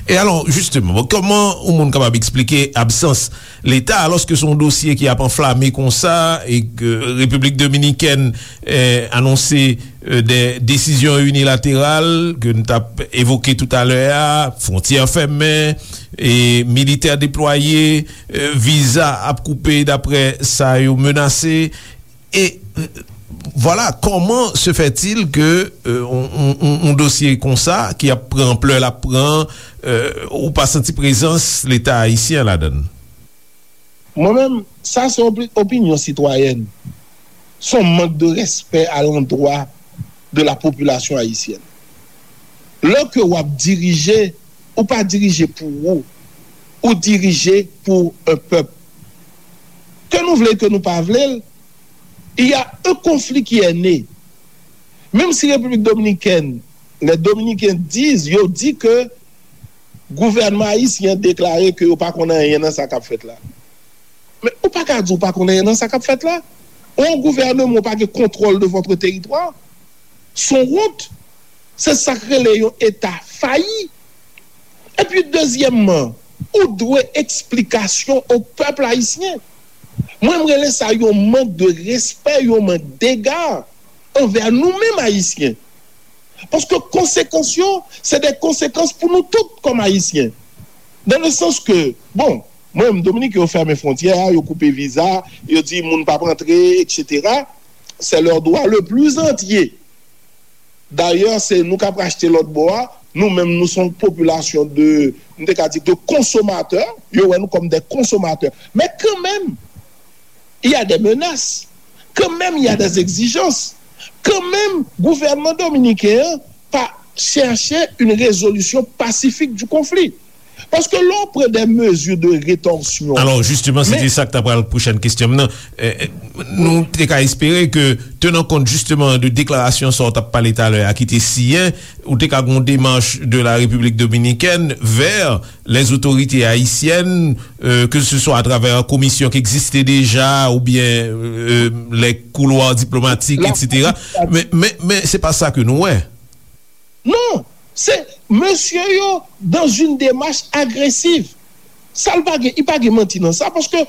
E alò, jisteman, bon, kòman yon moun kapab eksplike absans Leta, alòske se yon dosye ki ap anflame konsa, e ke Repiblik Dominikèn, eh, anonse, eh, de desizyon inilateral ke n t ap evoke toutalè a, fwontyè fèmen, e militè deplwaye, eh, viza ap koupe daprè sa yo menase. E, euh, vwala, comment se fait-il que, euh, on, on, on, on dosye konsa, ki ap pran anplè l ap pran, euh, ou pa santi prezans Leta ayisyen ladan l? Mwen menm, sa se opi-, opinyon sitwayèn. Se yon mank de respè alandwa de la popilasyon ayisyèn. Lè ke w ap dirije, ou pa dirije pou ou, ou dirije pou un pèp. Ke nou vle, ke nou pa vle l, il y a un conflit qui est né. Menm si Repiblik Dominikèn, les Dominicains disent, yo di ke gouvènman ayisyen deklare ke yo pa konn anyen nan sa k ap fèt la. Men ou pa ka di w pa konn anyen nan sa k ap fèt la. Yon gouvènman ou pa gen kontwòl de votre territoire. Se yon wont. Se sa k rele yon eta fayi. Epi dezyèmman, ou dwe eksplikasyon o pèp ayisyen. Mwen, m rele sa yon mank de respè, yon mank dega anvè nou menm ayisyen. Paske konsekans yo, se de konsekans pou nou tout kòm ayisyen. Dans le sens que, bon, mwen menm, Dominik, yo fèmen fwontyè a, yo koupe viza, yo di moun p ap antre, et cetera. C'est leur droit le plus entier. Dayè, se nou k ap rachte lòt bò a, Nou menm, nou se yon popilasyon de, m te ka di, de konsomatè. Yo wè nou kòm de konsomatè. Men kanmenm, il y a des menaces. Quand même, il y a des exigences. Kanmenm, gouvènman dominiken an pa chèche une résolution pacifique du conflit. Paske lè w pran des mesures de rétorsion. Alò, jisteman, se te sa k ta pral pwochèn kesyon m nan. Eh, eh, nou te ka espere ke, tenan kont jisteman de deklarasyon sa w t ap pale talè a ki te siyen, ou te ka gen yon demach de la République dominicaine vers les autorités haïtiennes, euh, que ce soit à travers komisyon ki egziste deja oubyen euh, les couloirs diplomatiques, et cetera. Men, men, men se pa sa ke nou wè. Non, se mesye yo dans une démarche agresiv. Sa l pa gen, li pa gen manti nan sa, paske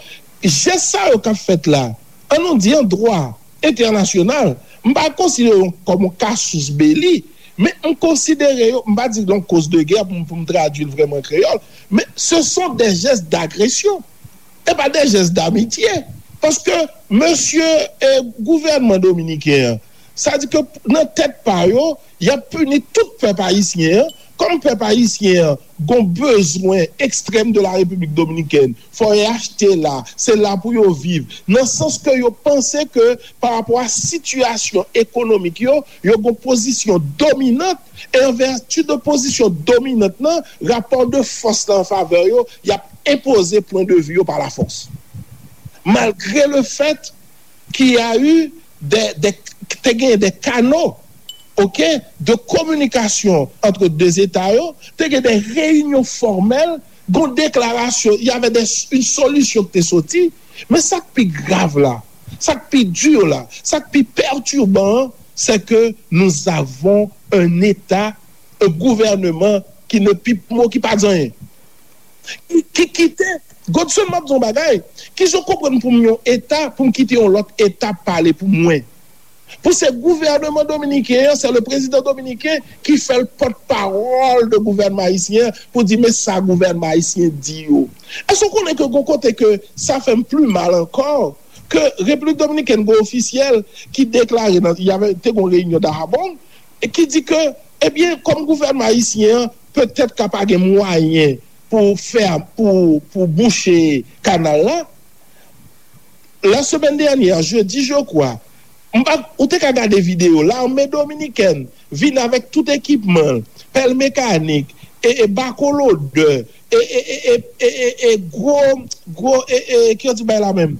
jès sa yo k ap fèt la, an nou di an dwa entènasyonal, m pa konsidere yo kòm yon casus belli, men m konsidere yo, m pa di l yon cause de guerre pou m, pou m tradui l vrèman an kreyòl, men ce sont des gestes d'agression. E pa de jès damitye. Paske mesye e gouvènman dominiken an, sa di ke nan tèt pa yo, y ap pini tout pèp ayisyen an. Kòm pèp ayisyen an gon bezwen ekstrèm de la Repiblik Dominikèn, fò y achte la, se la pou yo viv. Nan sans ke yo panse ke pa rapò a sitiyasyon ekonomik yo, yo gon pozisyon dominant, e an vèti de pozisyon dominant nan, rapò de fòs la an favè yo, y ap enpoze pwen de vi yo pa lafòs. Malgre le fèt ki a eu de, de, te gen de kano, ok, de kominikasyon antre de eta yo, te gen de reyinyon fòmèl, gon deklarasyon, y avè de, yon solisyon ki te soti, men sa k pi grav la, sa k pi di la, sa k pi pètiban an, c'est que nous avons un État, un gouvernement qui ne pipe mot, ki pa di anyen. Ki, ki kite, Godson, m ap di yon bagay, kijan w konprann pou m yon eta, pou m kite yon lòt eta pale pou mwen? Pou se gouvènman dominiken an, se le prezidan dominiken ki fè l pòtpawòl de gouvènman ayisyen an pou di men sa gouvènman ayisyen di yo. Èske w konnen ke gon kote ke sa fè m pli mal ankò, ke Repiblik Dominikèn gon ofisyèl ki deklare nan, y avè, te gon reyinyon Dajabón, e ki di ke, ebyen, kòm gouvènman ayisyen an petèt ka pa gen mwayen pou fè, pou, pou bouche kanal la, la semaine dernière, jeudi, je crois, m pa, ou te ka gade videyo, lame dominikèn vin avèk tout ekipman l, pèl mekanik, e, e bako lodè, e, e, e, e, e, e, e gwo, gwo, e, e, ki yo di bay la menm?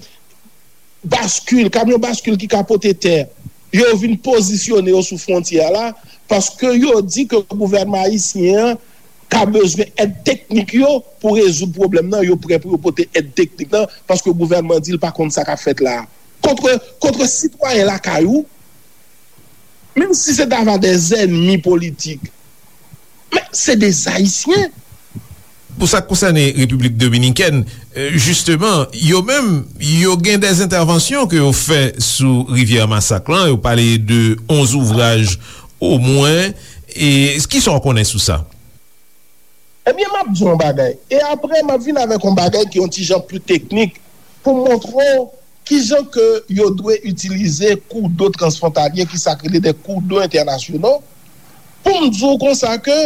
Baskil, kamyon baskil ki ka pote tè. Yo vin pozisyone yo sou fwontyè a la, paske yo di ke gouvènman ayisyen an ka bezwen èd teknik yo pou rezoud pwoblèm nan, yo prè pou yo pote èd teknik nan, paske gouvènman di l pa konn sa k ap fèt la a. Kontre, kontre sitwayen lakay ou, menm si se ta va de zènmi politik, men se de Ayisyen. Pou sa k konsène Repiblik Dominikèn, eh, jisteman, yo menm, yo gen de entèvansyon ke yo fè sou rivyè Masak lan, yo pale de onz ouvraj omwen, e kisa w konnen sou sa? Ebyen, m ap di w yon bagay. E apre, m ap vin avèk yon bagay ki yon ti jan pli teknik pou m montre w kijan ke yo dwe itilize kou do transfwontalye, ki sa k rele de kou do entènasyonal, pou m di w konsa ke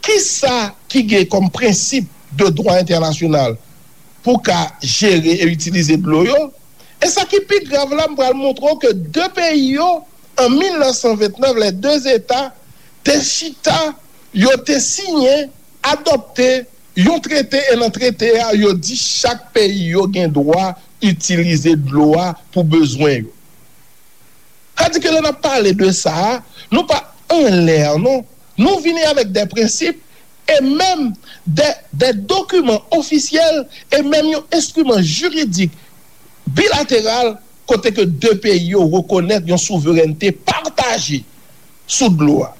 kisa ki gen kòm prensip de dwa entènasyonal pou ka jere e itilize dlo yo. E sa ki pi grav la, m pral montre w ke de peyi yo, an mil nèf san vennèf, les deux États te chita, yo te siyen, adopte yon trete, e nan trete a, yo di chak peyi yo gen dwa itilize dlo a pou bezwen yo. Sa di ke lè n ap pale de sa a, nou pa anlè, non. Nou vini avèk de prensip e menm de, de dokiman ofisyèl e menm yon enstriman jiridik bilateral kote ke de peyi yo rekonèt yon souverènte pataje sou dlo a.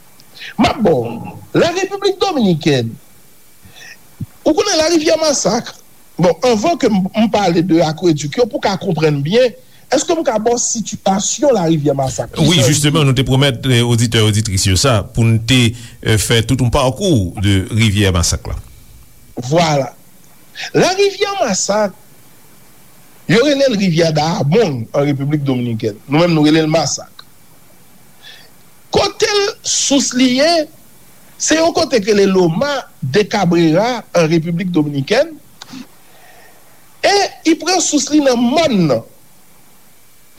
M ap ba w, la Repiblik Dominikèn, ou konnen larivyè Masak, bon, anvan ke m, m pale de akwedik yo, pou w ka konprann byen, èske m ka ba w sitiyasyon larivyè Masak? Wi, jisteman, nou te pwomèt eh, oditè, oditris yo sa, pou n te eh, fè tout yon pakou de rivyè Masak la. Vwala. Larivyè Masak, yo rele l rivyè Dahomey an Repiblik Dominikèn. Nou menm, nou rele l Masak. Kote l sous li ye, Se yon kote k rele Loma de Cabrera an Repiblik Dominikèn. E li pran sous li nan mòn nan.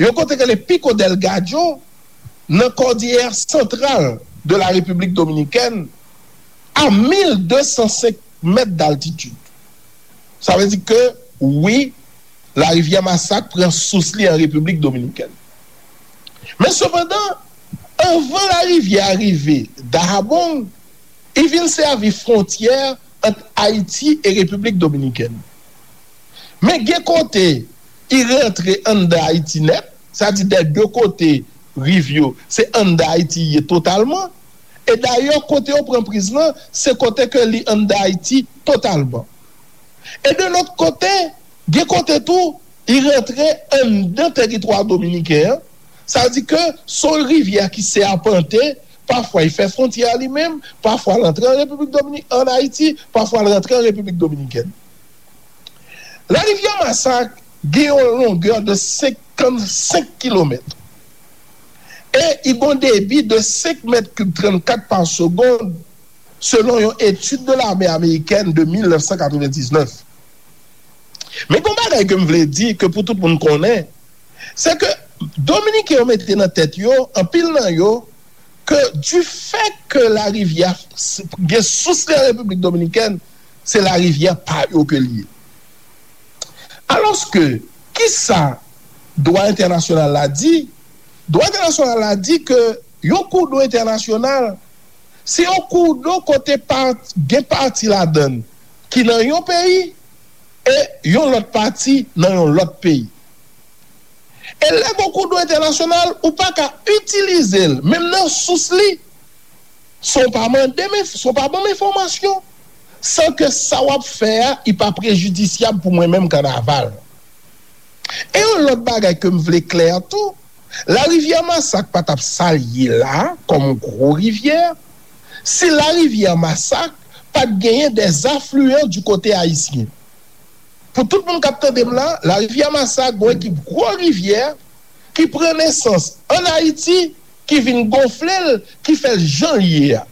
Yon kote k rele Pico del Gallo, nan Kòdiyè Santral de la Repiblik Dominikèn, a mil de san senk mèt d'altitid. Sa vle di ke, wi, larivyè Masak pran sous li an Repiblik Dominikèn. Men sepandan, anvan larivyè a rive Dajabong, li vin sèvi fwontyè ant Ayiti e Repiblik Dominikèn. Men gen kote li rantre anndan Ayiti nèt, sa di dè de kote riv yo, se anndan Ayiti li ye totalman. E dayè, kote yo pran priz lan, se kote ke li anndan Ayiti totalman. E de lòt kote, gen kote tou, li rantre anndan teritwa dominiken an. Sa vle di ke se yon rivyè ki sèpante, pafwa li fè fwontyè li menm, pafwa l antre an Repiblik Domini-, an Ayiti, pafwa l rantre an Repiblik Dominikèn. Larivyè Masak gen yon longè de senkannsenk kilomèt. E li gen yon debi de senk mèt kib trannkat pa segonn, selon yon etid de lame amerikèn de mil nèf san katrevendiznèf. Men gen yon bagay ke m vle di, ke pou tout moun konnen, se ke Dominiken yo mete nan tèt yo, anpil nan yo, ke du fait que larivyè gen sous li an Repiblik Dominikèn, se larivyè pa yo ke li ye. Alòske, kisa dwa entènasyonal la di? Dwa entènasyonal la di ke yon koudlo entènasyonal, se yon koudlo kote pa, gen pati ladan l ki nan yon peyi e yon lòt pati nan yon lòt peyi. E lè gen yon koudlo entènasyonal, ou pa ka itilize l, menm nan sous li, san w pa mande m, san w pa ban m enfòmasyon, san ke sa w ap fè a, li pa prejidisyab pou mwen menm Kannaval. E yon lòt bagay ke m vle klè tou, larivyè Masak pa t ap sa l ye la, kòm yon gwo rivyè, si larivyè Masak pa t genyen des affluents du côté haïtien. Pou tout moun k ap tande m la, larivyè Masak gen yon ekip gwo rivyè ki pran nesans ann Ayiti, ki vin gonfle l, ki fè l jan l ye a.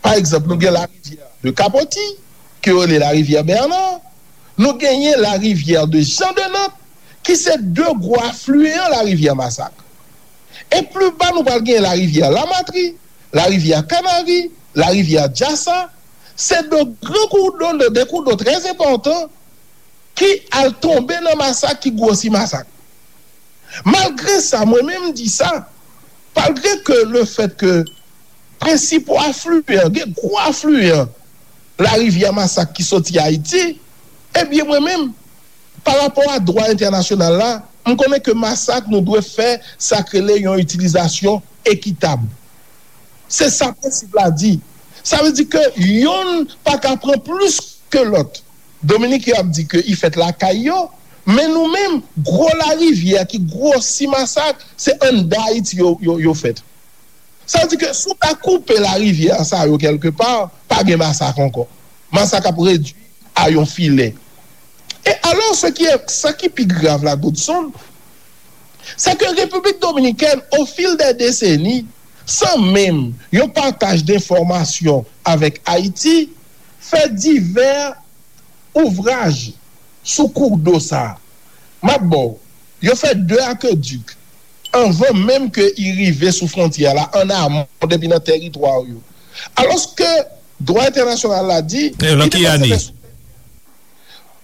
Pa egzanp, nou gen larivyè de Kapoti, ke yo rele larivyè Bèna, nou genyen larivyè de Jan de Nant, ki se de gwo afliyan larivyè Masak. E pli ba, nou pral genyen larivyè Lamatri, larivyè Kanari, larivyè Jasa, se de gran koudlo, de, de koudlo trè enpòtan, ki al tonbe nan Masak, ki gwosi Masak. Malgre sa, mwen menm m di sa, malgre ke le fèt ke prensipal afliyan, gen gwo afliyan larivyè Masak ki soti Ayiti, ebyen mwen menm, pa rapò a dwa entènasyonal la, m konnen ke Masak nou dwe fè sa k rele yon itilizasyon ekitab. Se sa prensip la di. Sa vle di ke yonn pa ka pran plis ke lòt. Dominik yo ap di ke li fèt lakay yo, men nou menm, gwo larivyè ki gwosi Masak, se anndan Ayiti yo, yo, yo fèt. Sa vle di ke si w ta koupe larivyè sa yo kèlkepa, pa gen Masak ankò. Masak ap redui a yon filè. E alò, sa ki, sa ki pi grav la, Godson, se ke Repiblik Dominikèn, au fil des décennies, san menm yon pataj de enfòmasyon avèk Ayiti, fè divè ouvraj sou koudlo sa a. M ap ba w, yo fè de akedik anvan menm ke li rive sou fwontyè la, an amon, depi nan tèritwa yo. Alòske dwa entènasyonal la di, Nan ki ane?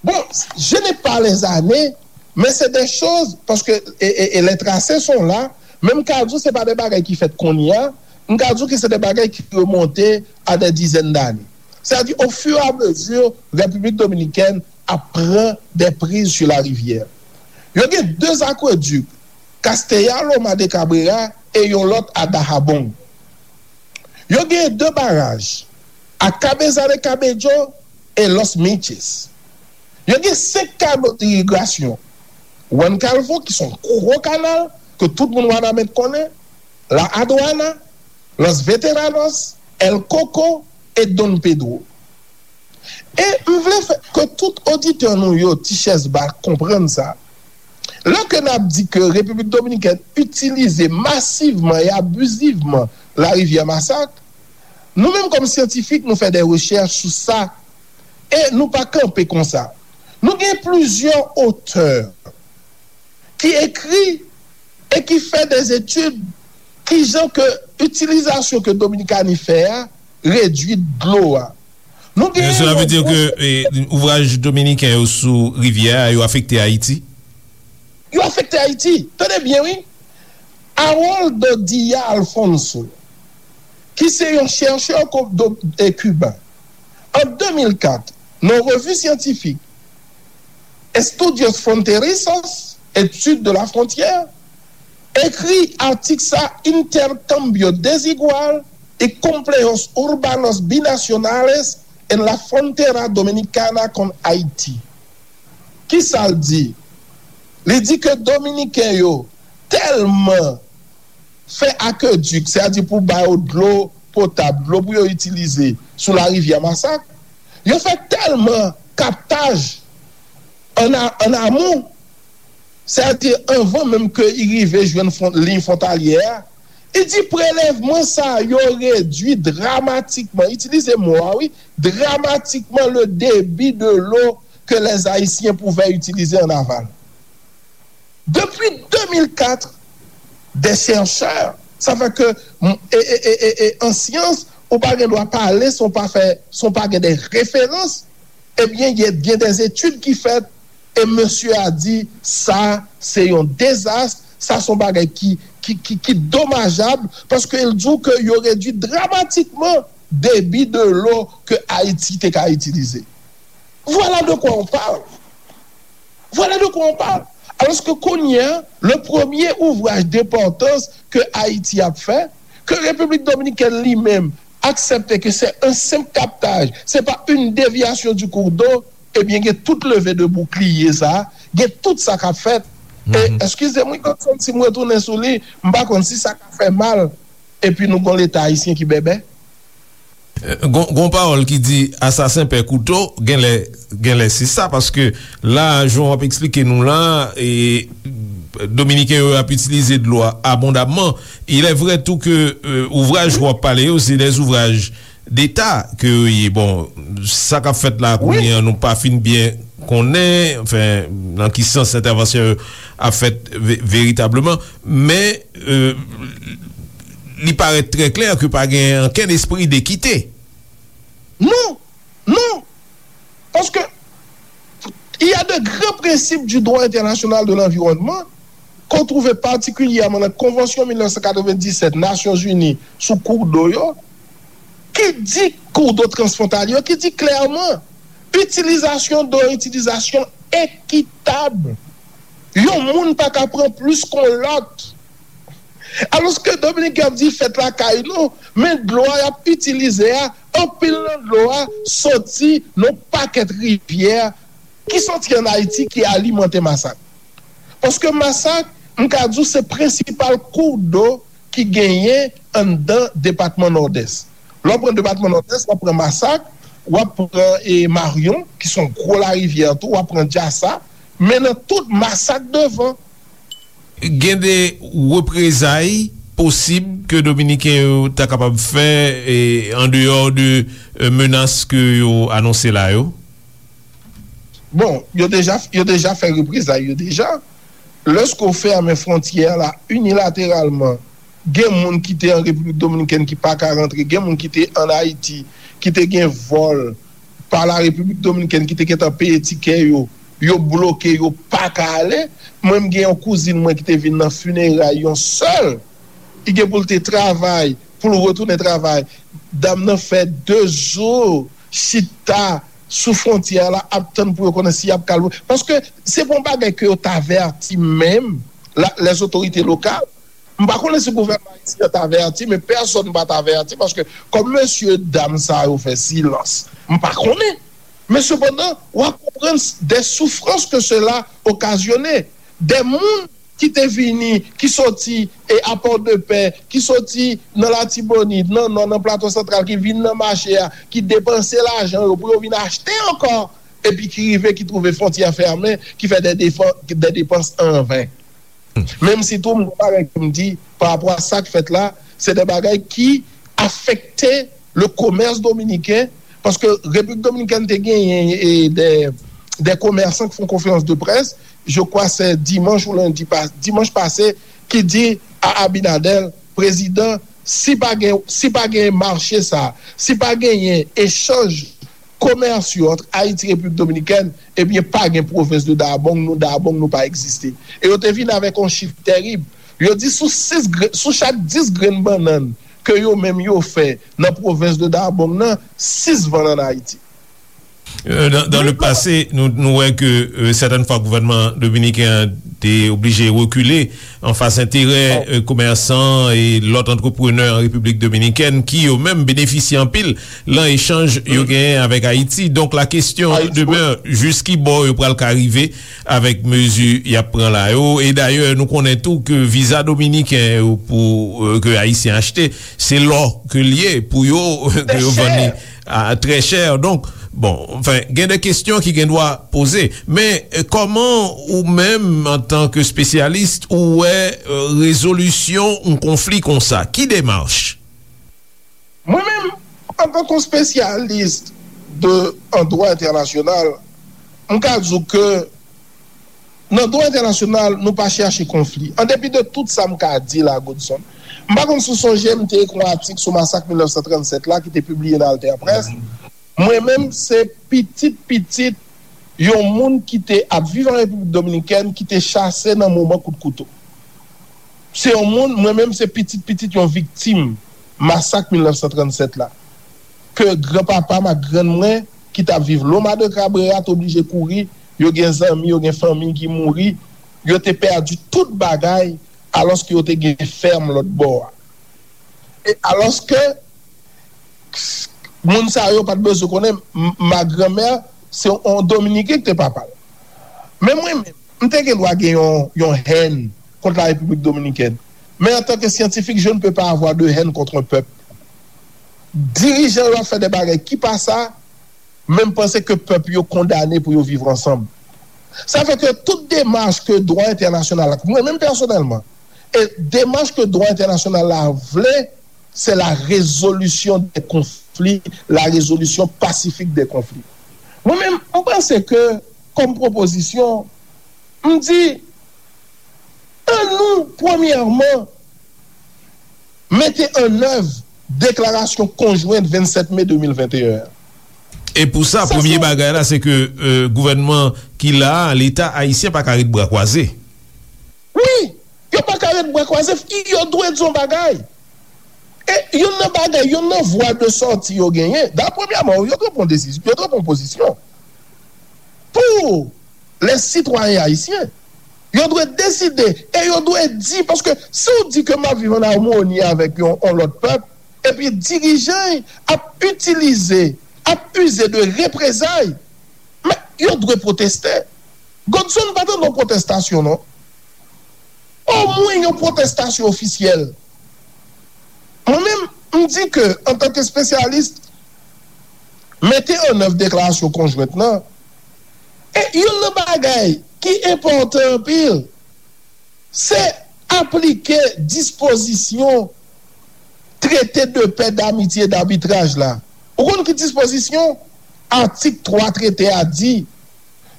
Bon, je n'ai pas les années, mais c'est des choses, paske, e, e, e les tracés sont là, men m ka di w se pa de bagay ki fèt kounye a, m ka di w ke se de bagay ki remonte a des dizaines d'années. Sa di, au fur et à mesure, Repiblik Dominikèn ap pran de priz sou larivyè. Yo gen de akwedik, Castella Loma de Cabrera e yon lòt a Dajabón. Yo gen de baraj, a Cabeza de Cabello e Los Miches. Yo gen senk kanal irigasyon. Juan Calvo, ki se yon gwo kanal ke tout moun Wanament konnen, La Aduana, Los Veteranos, El Coco e Don Pedro. E m vle fè ke tout oditè nou yo, Ti Chèz Ba, konprann sa. Lè ke n ap di ke Repiblik Dominikèn itilize masivman e abizivman larivyè Masak, Nou menm kòm syantifik, nou fè de rechèch sou sa e nou pa kanpe konsa. Nou gen plizyè otè ki ekri e ki fè de etid kijan ke itilizasyon ke Dominikani fè a redui dlo a. Nou gen Cela veut dire que eh, ouvraj dominiken yo sou rivyè a yo afekte Ayiti? Yo afekte Ayiti. Tande byen, wi. Aroldo Dia Alfonso, ki se yon chèchè kiben, an de mil kat, nan revi syantifik Estudios Fronterizos, Études de la Frontière, ekri atik sa: Intercambio desigual y complejos urbanos binacionales en la frontera dominicana con Haiti. Kisa l di? Li di ke Dominiken yo tèlman fè akedik, sètadi pou ba yo dlo potab, dlo pou yo itilize sou larivyè Masak, yo fè tèlman kaptaj an amon, sètadi anvan menm ke li rive jwenn liy fwontalyè a, li di prelèvman sa yo redui dramatikman, itilize mo a wi, dramatikman le débit de l'eau que les Haïtiens pouvaient utiliser en aval. Depi de mil kat, de chèchè, sa fè ke an syans, ou pa gen dwa pale san w pa fè, san w pa gen de referans. Ebyen, gen de etid ki fèt e mesye a di sa se yon dezas, sa se yon bagay ki, ki, ki, ki domajab, paske l di w ke yo redui dramatikman debi de lo ke Ayiti te ka itilize. Voilà de quoi on parle. Voilà de quoi on parle. Alòske kounye a, le premye ouvraj denpòtans ke Ayiti ap fè, ke Repiblik Dominikèn li menm aksepte ke se yon senp kaptaj, se pa une déviation du cours d'eau, ebyen gen tout leve de boukliye sa, gen tout sa k ap fèt. E eskize m wi, Godson, si m retounen sou li, m pa konn si sa ka fè mal, epi nou gon Leta ayisyen ki bèbè. Gon, gon pawòl ki di asasen pè kouto, genlè, genlè se sa, paske la, jan w ap eksplike nou la, e, Dominiken yo ap itilize dlo a abondamman. Il est vrai tou ke, euh, ouvraj w ap pale yo, se de ouvraj deta ke yo ye. Bon, sa k ap fèt la kounye an, nou pa fin byen konnen, anfen, nan ki sans entèvansyon yo ap fèt ve-, veritableman. Men, euh, li parèt trè klè ke pa gen ankenn espri dekite. Non, non. Paske il y a de grands principes du droit international de l'environnement qu'on trouve particulièrement nan Konvansyon mil nèf san katrevenndisèt Nasyonzini sou kou do yo, ki di kou do transfwontalye yo, ki di klèman, itilizasyon do, itilizasyon ekitab. Yon moun pa ka pran plis kon lòt. Alòske Dominiken ap di fèt lakay nou, men dlo a y ap itilize a, anpil nan dlo a soti nan pakèt rivyè ki soti ann Ayiti ki alimante Masak. Paske Masak, m ka di w, se prensipal kou do ki genyen anndan depatman Nòdès. Lè w pran depatman Nòdès, w ap pran Masak, w ap pran, e, Maryon, ki se yon gwo larivyè tou, w ap pran Dyasa, men nan tout Masak devan. Gen de reprezay posib ke Dominiken yo ta kapab fè, e, andeyò de, e, menas ke yo anonse la yo? Bon, yo deja, yo deja fè reprezay yo deja. Lèske w fèmen fwontyè la inilateralman, gen moun ki te an Repiblik Dominikèn ki pa ka rantre, gen moun ki te ann Ayiti, ki te gen vòl pa la Repiblik Dominikèn ki te gentan peye tikè yo, yo bloke, yo pa ka ale. Mwen, m gen yon kouzin mwen ki te vin nan fineray yon sè l. Li gen pou l te travay, pou l retounen travay. Dam nan fè de jou chita sou fwontyè la ap tann pou yo konnen si y ap ka lwe. Paske se pa yon bagay ke yo t avèti menm, la, les autorités locales. M pa konnen si gouvènman ayisyen an t avèti, men pèsonn pa t avèti, paske kòm mesye dam sa yo fè silans, m pa konnen. Men sepandan, w ap konprann de soufrans ke sela okazyone. De moun ki te vini, ki soti, e, a Pòdepè, ki soti nan Latibonit, nan Nò, nan Plato Santral, ki vin nan mache a, ki depanse lajan yo pou yo vin achte ankò, epi ki rive, ki twouve fwontyè fèmen, ki fè de depan-, de depans an ven. Menm si tou, m gon bagay ke m di, pa rapò a sa k fèt la, se de bagay ki afekte le commerce dominicain, paske Repiblik Dominikèn te genyen e, de, de commerçants ki fè yon konferans de près, je crois se dimanch ou lendi, dimanch pase, ki di a Abinader, prezidan, si pa gen, si pa gen mache sa, si pa genyen echanj komèsyal ant Ayiti e Repiblik Dominikèn, ebyen, pa gen pwovens de Dabong, nou Dabong nou pa egziste. E yo te vin avèk yon chif tèrib. Yo di sou sis gre- sou chak dis grenn bannann ke yo menm yo fè nan pwovens de Dabong nan, sis vann ann Ayiti. Euh, dans, dans le passé, nou, nou wè ke euh, sètèn fwa gouvènman dominiken an te oblije rekile anfas enterè euh, komèsan e lòt antreprenè an Repiblik Dominikèn ki yo menm benefisye anpil lan echanj yo genyen avèk Ayiti. Donk la kesyon demè, jis ki bò yo pral ka rive avèk mezi y ap pran la yo. E dayè nou konnen tou ke viza dominiken yo pou euh, ke Ayisyen achte, se lò ke l ye pou yo ke yo vann li a trè chè. Donk, bon, anfen, gen de kesyon ki gen dwa poze. Men euh, kòman ou menm antan ke spesyalis ou wè euh, rezolisyon yon konfli konsa? Ki demach? Mwen menm, antan ke spesyalis de an dwa entènasyonal, m ka di w ke nan dwa entènasyonal, nou pa chache konfli. An depi de tout sa m ka di la, Godson, m pa konn si w sonje m te ekri yon atik sou masak mil nèf san trannsèt la ki te pibliye nan Alter Press. Mwen menm, se pitit pitit yon moun ki te ap viv an Repiblik Dominikèn ki te chase nan moman kout kouto. Se yon moun, mwen menm, se pitit pitit yon viktim masak mil nèf san trannsèt la. Ke granpapa m ak grann mwen, ki t ap viv Loma de Cabrera, te oblije kouri, yo gen zanmi, yo gen fanmi ki mouri, yo te pèdi tout bagay, alòske yo te gen fèm lòt bò a. E alòske moun sa yo pa t bezwen konnen, m- ma granmè, se yon Dominiken ki te papa l. Men mwen menm, m te gen dwa gen yon, yon hèn kont la Repiblik Dominikèn. Men antanke syantifik, je ne peux pas avoir de haine contre un peuple. Dirijan yo ap fè de bagay ki pa sa, men m panse ke pèp yo kondane pou yo viv ansanm. Sa fè ke tout demach ke dwa entènasyonal la, mwen menm pèsonèlman, e demach ke dwa entènasyonal la vle, se la résolution des conflits, la résolution pacifique des conflits. Mwen menm, m panse ke, kòm pwopozisyon, m di, an nou, premyèman, mete an èv deklarasyon konjwent vennsèt me de mil venteyen an. E pou sa, premye bagay la, se ke euh, gouvènman ki la a, Leta ayisyen pa ka ret bra kwaze. Wi, yo pa ka ret bra kwaze, yo dwe di yon bagay. E youn nan bagay, youn nan vwa de sòti yo genyen, da premyèman, yo dwe pran desizyon, yo dwe pran pozisyon. Pou les citoyens haïtiens, yo dwe deside e yo dwe di, paske si w di ke m ap viv an amoni avèk yon, yon lòt pèp, epi dirijan ap itilize, ap ize de reprezay, men yo dwe pwoteste. Godson pa tande yon pwotestasyon, non. Omwen yon pwotestasyon ofisyèl. Mwen menm, m di ke, antanke espesyalis, mete an èv deklarasyon konjwent lan. E youn nan bagay ki enpòtan anpil, se aplike dispozisyon trete de pè, damitye e dabitraj la. Ou konn ki dispozisyon? Atik twa trete a di,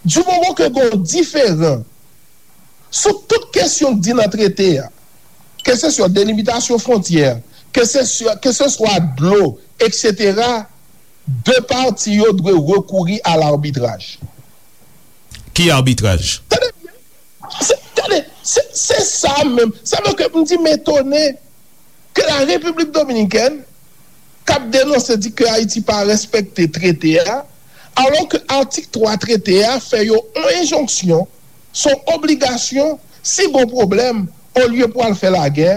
di moman ke gen yon diferan sou tout kesyon k di nan trete a, keseswa delimitasyon fwontyè, keseswa, keseswa dlo, etsetera, de pati yo dwe rekouri a labitraj. Ki abitraj? Tande byen. Se, tande, se, se sa menm. Sa vle ke m di m etone ke la Repiblik Dominikèn k ap denonse di ke Ayiti pa respekte trete a, alò ke atik twa trete a fè yo yon enjonksyon, se yon obligasyon, si gon pwoblèm, olye pou al fè lagè,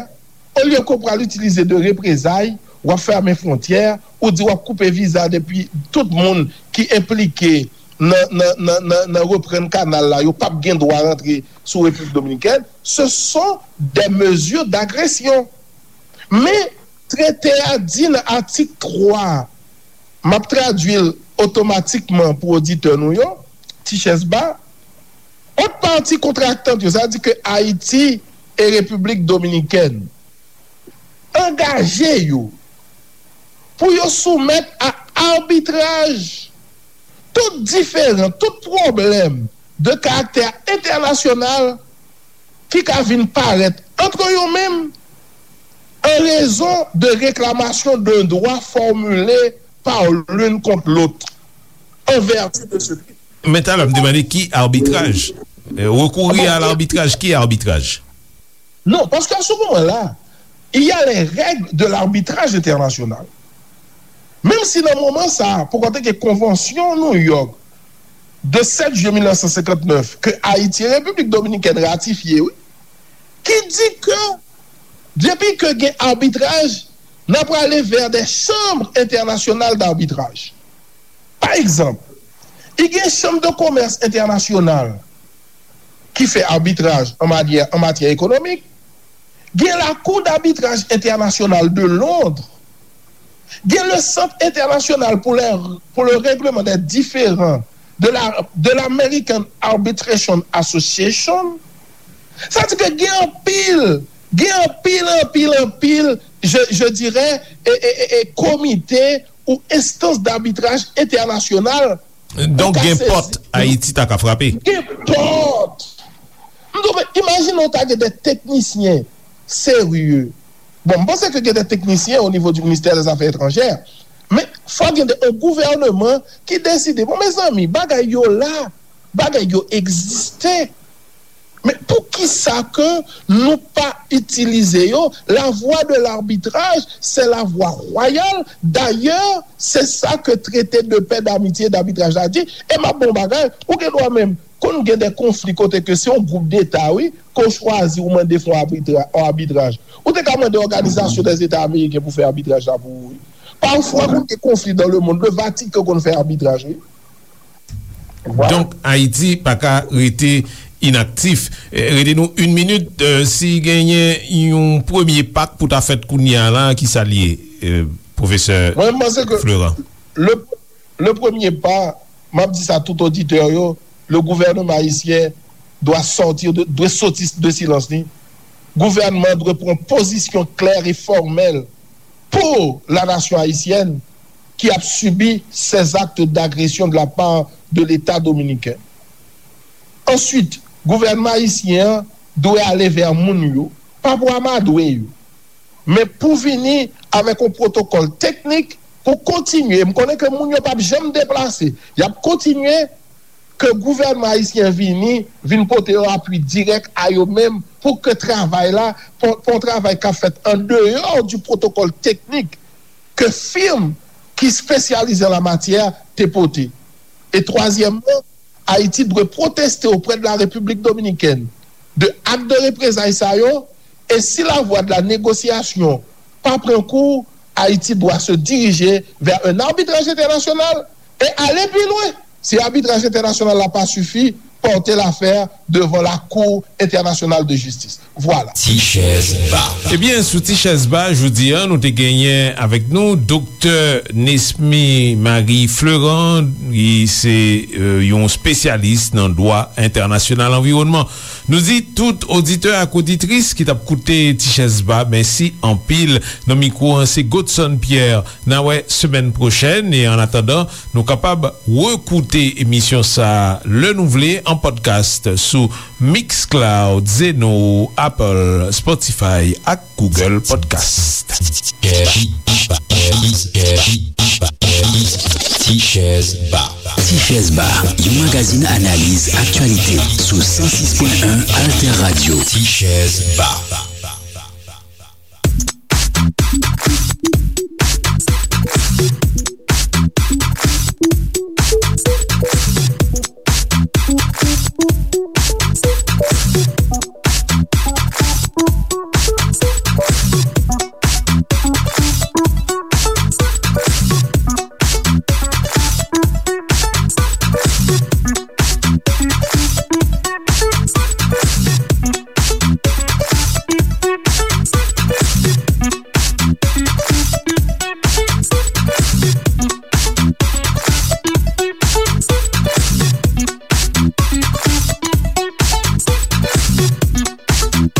olye ke w pral itilize de reprezay, w ap fèmen fwontyè, ou di w ap koupe viza depi tout moun ki enplike nan, nan, nan, nan, nan reprann kanal la, yo p ap gen dwa rantre sou Repiblik Dominikèn. Ce sont des mesures d'agression. Men, trete a di nan atik twa, m ap tradui l otomatikman pou oditè nou yo, ti chèz ba, ant pati kontraktant yo, sa di ke Ayiti e Repiblik Dominikèn, angaje yo pou yo soumèt a abitraj tout diferan, tout pwoblèm de karaktè entènasyonal ki ka vin parèt ant yo menm an rezon de reklamasyon de dwa fòmile pa youn kont lòt an vèti de se. Men talè m te mande ki abitraj? Rekouri a labitraj, ki abitraj? Non, paske a se moman la, il y a les règles de l'arbitrage international. Menm si nan moman sa a, pou konte ke konvansyon New York de sèt jiyè mil nèf san senkant nèf ke Ayiti e Repiblik Dominikèn ratifye, wi, ki di ke depi ke gen abitraj, n ap prale vè de chanm entènasyonal dabitraj. Pa egzanp, i gen chanm de komès entènasyonal ki fè abitraj an matyè, an matyè ekonomik, gen la Cour d'arbitrage internationale de Londres, gen le Centre international pour, les, pour le règlement des différends de la, de l'American Arbitration Association. Sa di ke gen anpil, gen anpil, anpil, anpil, je, je dirais, e, e, e, e komite ou enstans dabitraj entènasyonal. Donk, gen pòt Ayiti ta ka frape. Gen pòt. M di w, men, imajine w ta gen de teknisyen serye. Bon, m panse ke gen de teknisyen o nivo di ministè dè zafè etranjè. Men, fò gen de, yon gouvèneman ki deside, bon, mezanmi, bagay yo la, bagay yo egziste. Men poukisa ke nou pa itilize yo? La voie de l'arbitrage, c'est la voie royale. D'ailleurs, c'est ça que traité de paix, d'amitié, d'arbitrage la di. E m ap bon bagay, ou gen dwa menm, konn gen de konfli kote ke se yon gwoup deta, wi, ke w chwazi, ou mande fè yon abitraj. Ou te ka mande Òganizasyon dè Zeta Ameriken pou fè abitraj la pou ou, wi. Pafwa, konn gen konfli dans le monde, le Vatican konn fè abitraj, wi. Donk, Ayiti pa ka rete inaktif. Rete nou yon minit, si genyen yon premye pa k pou ta fèt kounye a la, ki sa l ye, pwofesè Florent? Le, le premier pas, m ap di sa tout oditè yo, le gouvernement haïtien doit sortir de, dwe soti de silans li. Gouvènman dwe pran pozisyon klè e fòmèl pour la nation haïtienne qui a subi ces actes d'agression de la part de l'État dominicain. Answit, gouvènman ayisyen an dwe ale vè moun yo, pa pou amadwe yo, men pou vini avèk yon pwotokòl teknik pou kontinye. M konnen ke moun yo p ap janm deplase, y ap kontinye ke gouvènman ayisyen vini, vin pote yon apui dirèk a yo menm pou ke travay la, pou, pou yon travay k ap fèt an deyò di pwotokòl teknik ke fim ki espesyalize an la matyè te pote. E twazyèmman, Ayiti dwe pwoteste oprè de la Repiblik Dominikèn de ak de reprezay sa yo, e si la voie de la négociation pa pran kou, Ayiti dwa se dirije vè un arbitraj entènasyonal e ale pi lwen. Si abitraj entènasyonal la pa sifi, pòte lafè devan la Cour internationale de justice. Vwala. Ti chèz ba. Ebyen, sou Ti chèz ba, jodi a, nou te genyen avèk nou Doktè Nesmy Marie Fleurant, ki se, euh, yon espesyalis nan dwa entènasyonal anviwònman. Nou di tout oditè ak oditris ki t ap koute Ti chèz ba, mèsi anpil. Nan mikwo an, se Godson Pierre. N a wè semèn pwochèn, e an atandan, nou kapab rekoute emisyon sa a lè nou vle an podcast sou Mixcloud, Zeno, Apple, Spotify ak Google Podcast. Ti chèz ba. Ti chèz ba, yon magazin analiz aktyalite sou san sis pwen en Alter Radio. Ti chèz ba.